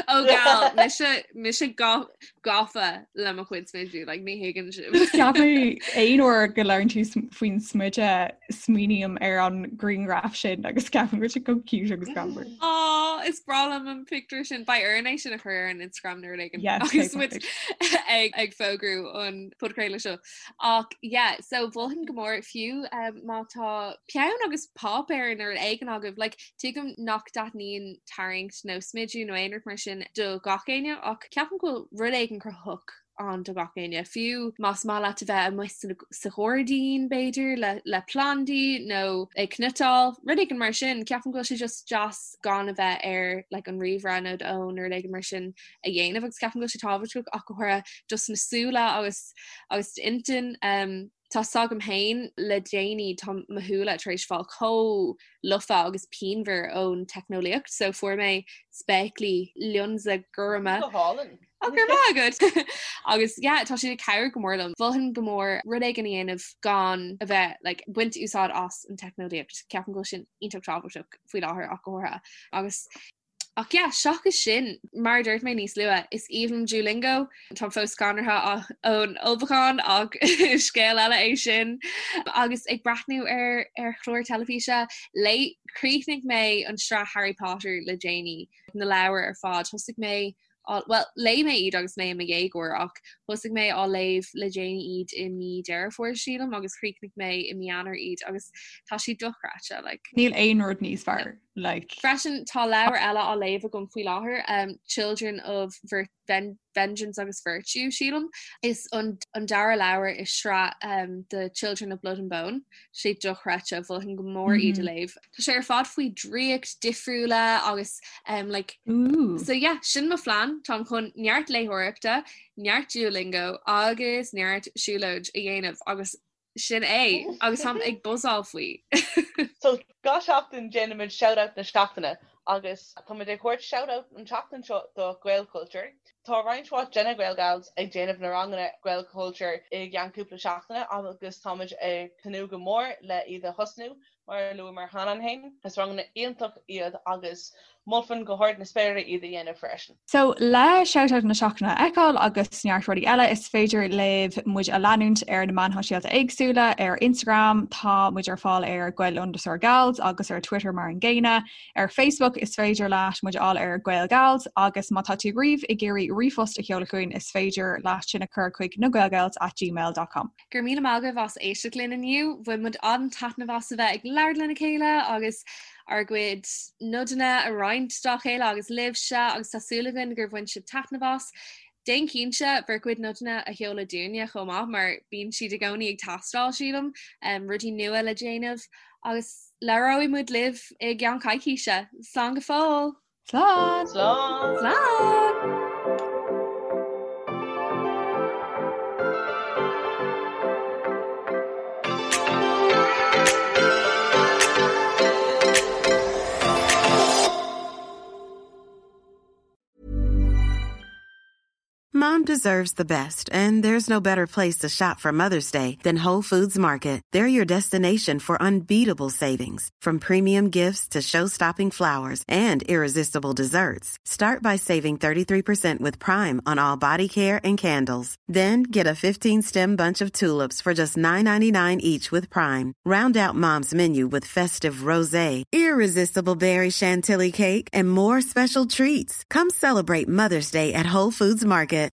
Ó gal mise mise gafa le mo chuid smidiú like ní thuigeann sibh.
Ceapaim aon uair go labhrann tú faoin smideadh smaoiním ar an grianghraf sin agus ceapaim go bhfuil sé chomh cute agus greannmhar.
Á is breá liom an pictiúr sin beidh orainn é sin a chur ar an Instagram nó rud éigin
Yes,
agus
okay,
muid ag ag fógrú an podchraoladh seo. Ach yeah, so mholfainn go mór fiú um, má tá peann agus páipéar nó rud éigin agaibh, like, tuigim nach dtaitníonn tarraingt nó smidiú nó aon rud mar sin do gach éinne ach ceapaim go bhfuil rud éigin cruthaitheach. ann do gach éinne, fiú más maith leat a bheith amuigh sa ghairdín b'fhéidir le le plandaí nó ag cniotáil, rud éigin mar sin, ceapaim go bhfuil sé just deas gan a bheith ar like an ríomhaire nó d'fhón nó rud éigin mar sin a dhéanamh agus ceapaim go bhfuil sé tábhachtach ach go háirithe dos na súile agus agus d'intinn. Um, Tá 's agam féin le déanaí tá mo shúile tar éis fáil chomh lofa agus pianmhar ón teicneolaíocht so fuair mé spéaclaí lionsa gorma.
Go hálainn.
Ó go raibh maith agat! Agus yeah tá siad ag cabhrú go mór liom. Mholfainn go mór rud éigin a dhéanamh gan a bheith like baint úsáid as an teicneolaíocht. Ceapaim go bhfuil sin iontach tábhachtach faoi láthair ach go háirithe. Agus Ach yeah, seachas sin, mar a dúirt mé níos luaithe, is aoibhinn liom Duolingo. Táim fós scanraithe ón ullmhúchán ach scéal eile é sin. Agus ag breathnú ar ar chlár teilifíse, léigh, chríochnaigh mé an sraith Harry Potter le déanaí, na leabhair ar fad. Thosaigh mé á, bhuel, léigh mé iad agus mé i mo dhéagóir ach thosaigh mé á léamh le déanaí iad i mí Deireadh Fómhair, sílim, agus chríochnaigh mé i mí Eanáir iad agus tá siad dochreidte, like.
Níl aon rud níos fearr, like.
Freisin, tá leabhar eile á léamh agam faoi láthair, um, Children of Vir Ven Vengeance agus Virtue, sílim. Is an, an dara leabhar i sraith um, The Children of Blood and Bone. Sé dochreidte, mholfainn go mór iad a léamh. Tá sé ar fad faoi draíocht difriúla agus um, like,
Ooh.
so yeah, sin mo phlean, táim chun neart léitheoireachta, neart Duolingo agus neart siúlóid a dhéanamh agus sin é agus táim ag buzzáil faoi.
So gach seachtain déanaimid shout-out na seachtaine agus táimid ag thabhairt shout-out an tseachtain seo do Gaelchultúr. Tá roinnt mhaith de na Gaelgals ag déanamh na ranganna Gaelchultúr i gceann cúpla seachtaine agus táimid ag tnúth go mór le iad a thosnú. Mar a luamar cheana féin, is ranganna iontach iad agus mholfainn go hard na spéire iad a dhéanamh freisin.
So, le Shoutout na Seachtaine a fheiceáil agus neart rudaí eile, is féidir libh muid a leanúint ar na meáin shóisialta éagsúla, ar Instagram tá muid ar fáil ar Gael underscore Gals agus ar Twitter mar an gcéanna. Ar Facebook is féidir leat muid a fháil ar Gaelgals agus má tá tú riamh ag iarraidh ríomhphost a sheoladh chugainn is féidir leat sin a chur chuig nagaelgals at gmail dot com.
Go raibh míle maith agaibh as éisteacht linn inniu. Bhain muid an-taitneamh as a bheith ag labhairt lena chéile agus ár gcuid nodanna a roinnt dá chéile agus libhse agus tá súil againn gur bhain sibh taitneamh as. Déan cinnte bhur gcuid nodanna a sheoladh dúinne chomh maith mar bíonn siad i gcónaí ag teastáil, sílim, rudaí nua le déanamh agus labhróidh muid libh i gceann coicíse. Slán go fóill!
Slán!
Slán!
Slán!
Mom deserves the best, and there's no better place to shop for Mother's Day than Whole Foods Market. They're your destination for unbeatable savings, from premium gifts to show-stopping flowers and irresistible desserts. Start by saving 33% with Prime on all body care and candles. Then get a 15-stem bunch of tulips for just $9.99 each with Prime. Round out Mom's menu with festive rosé, irresistible berry chantilly cake, and more special treats. Come celebrate Mother's Day at Whole Foods Market.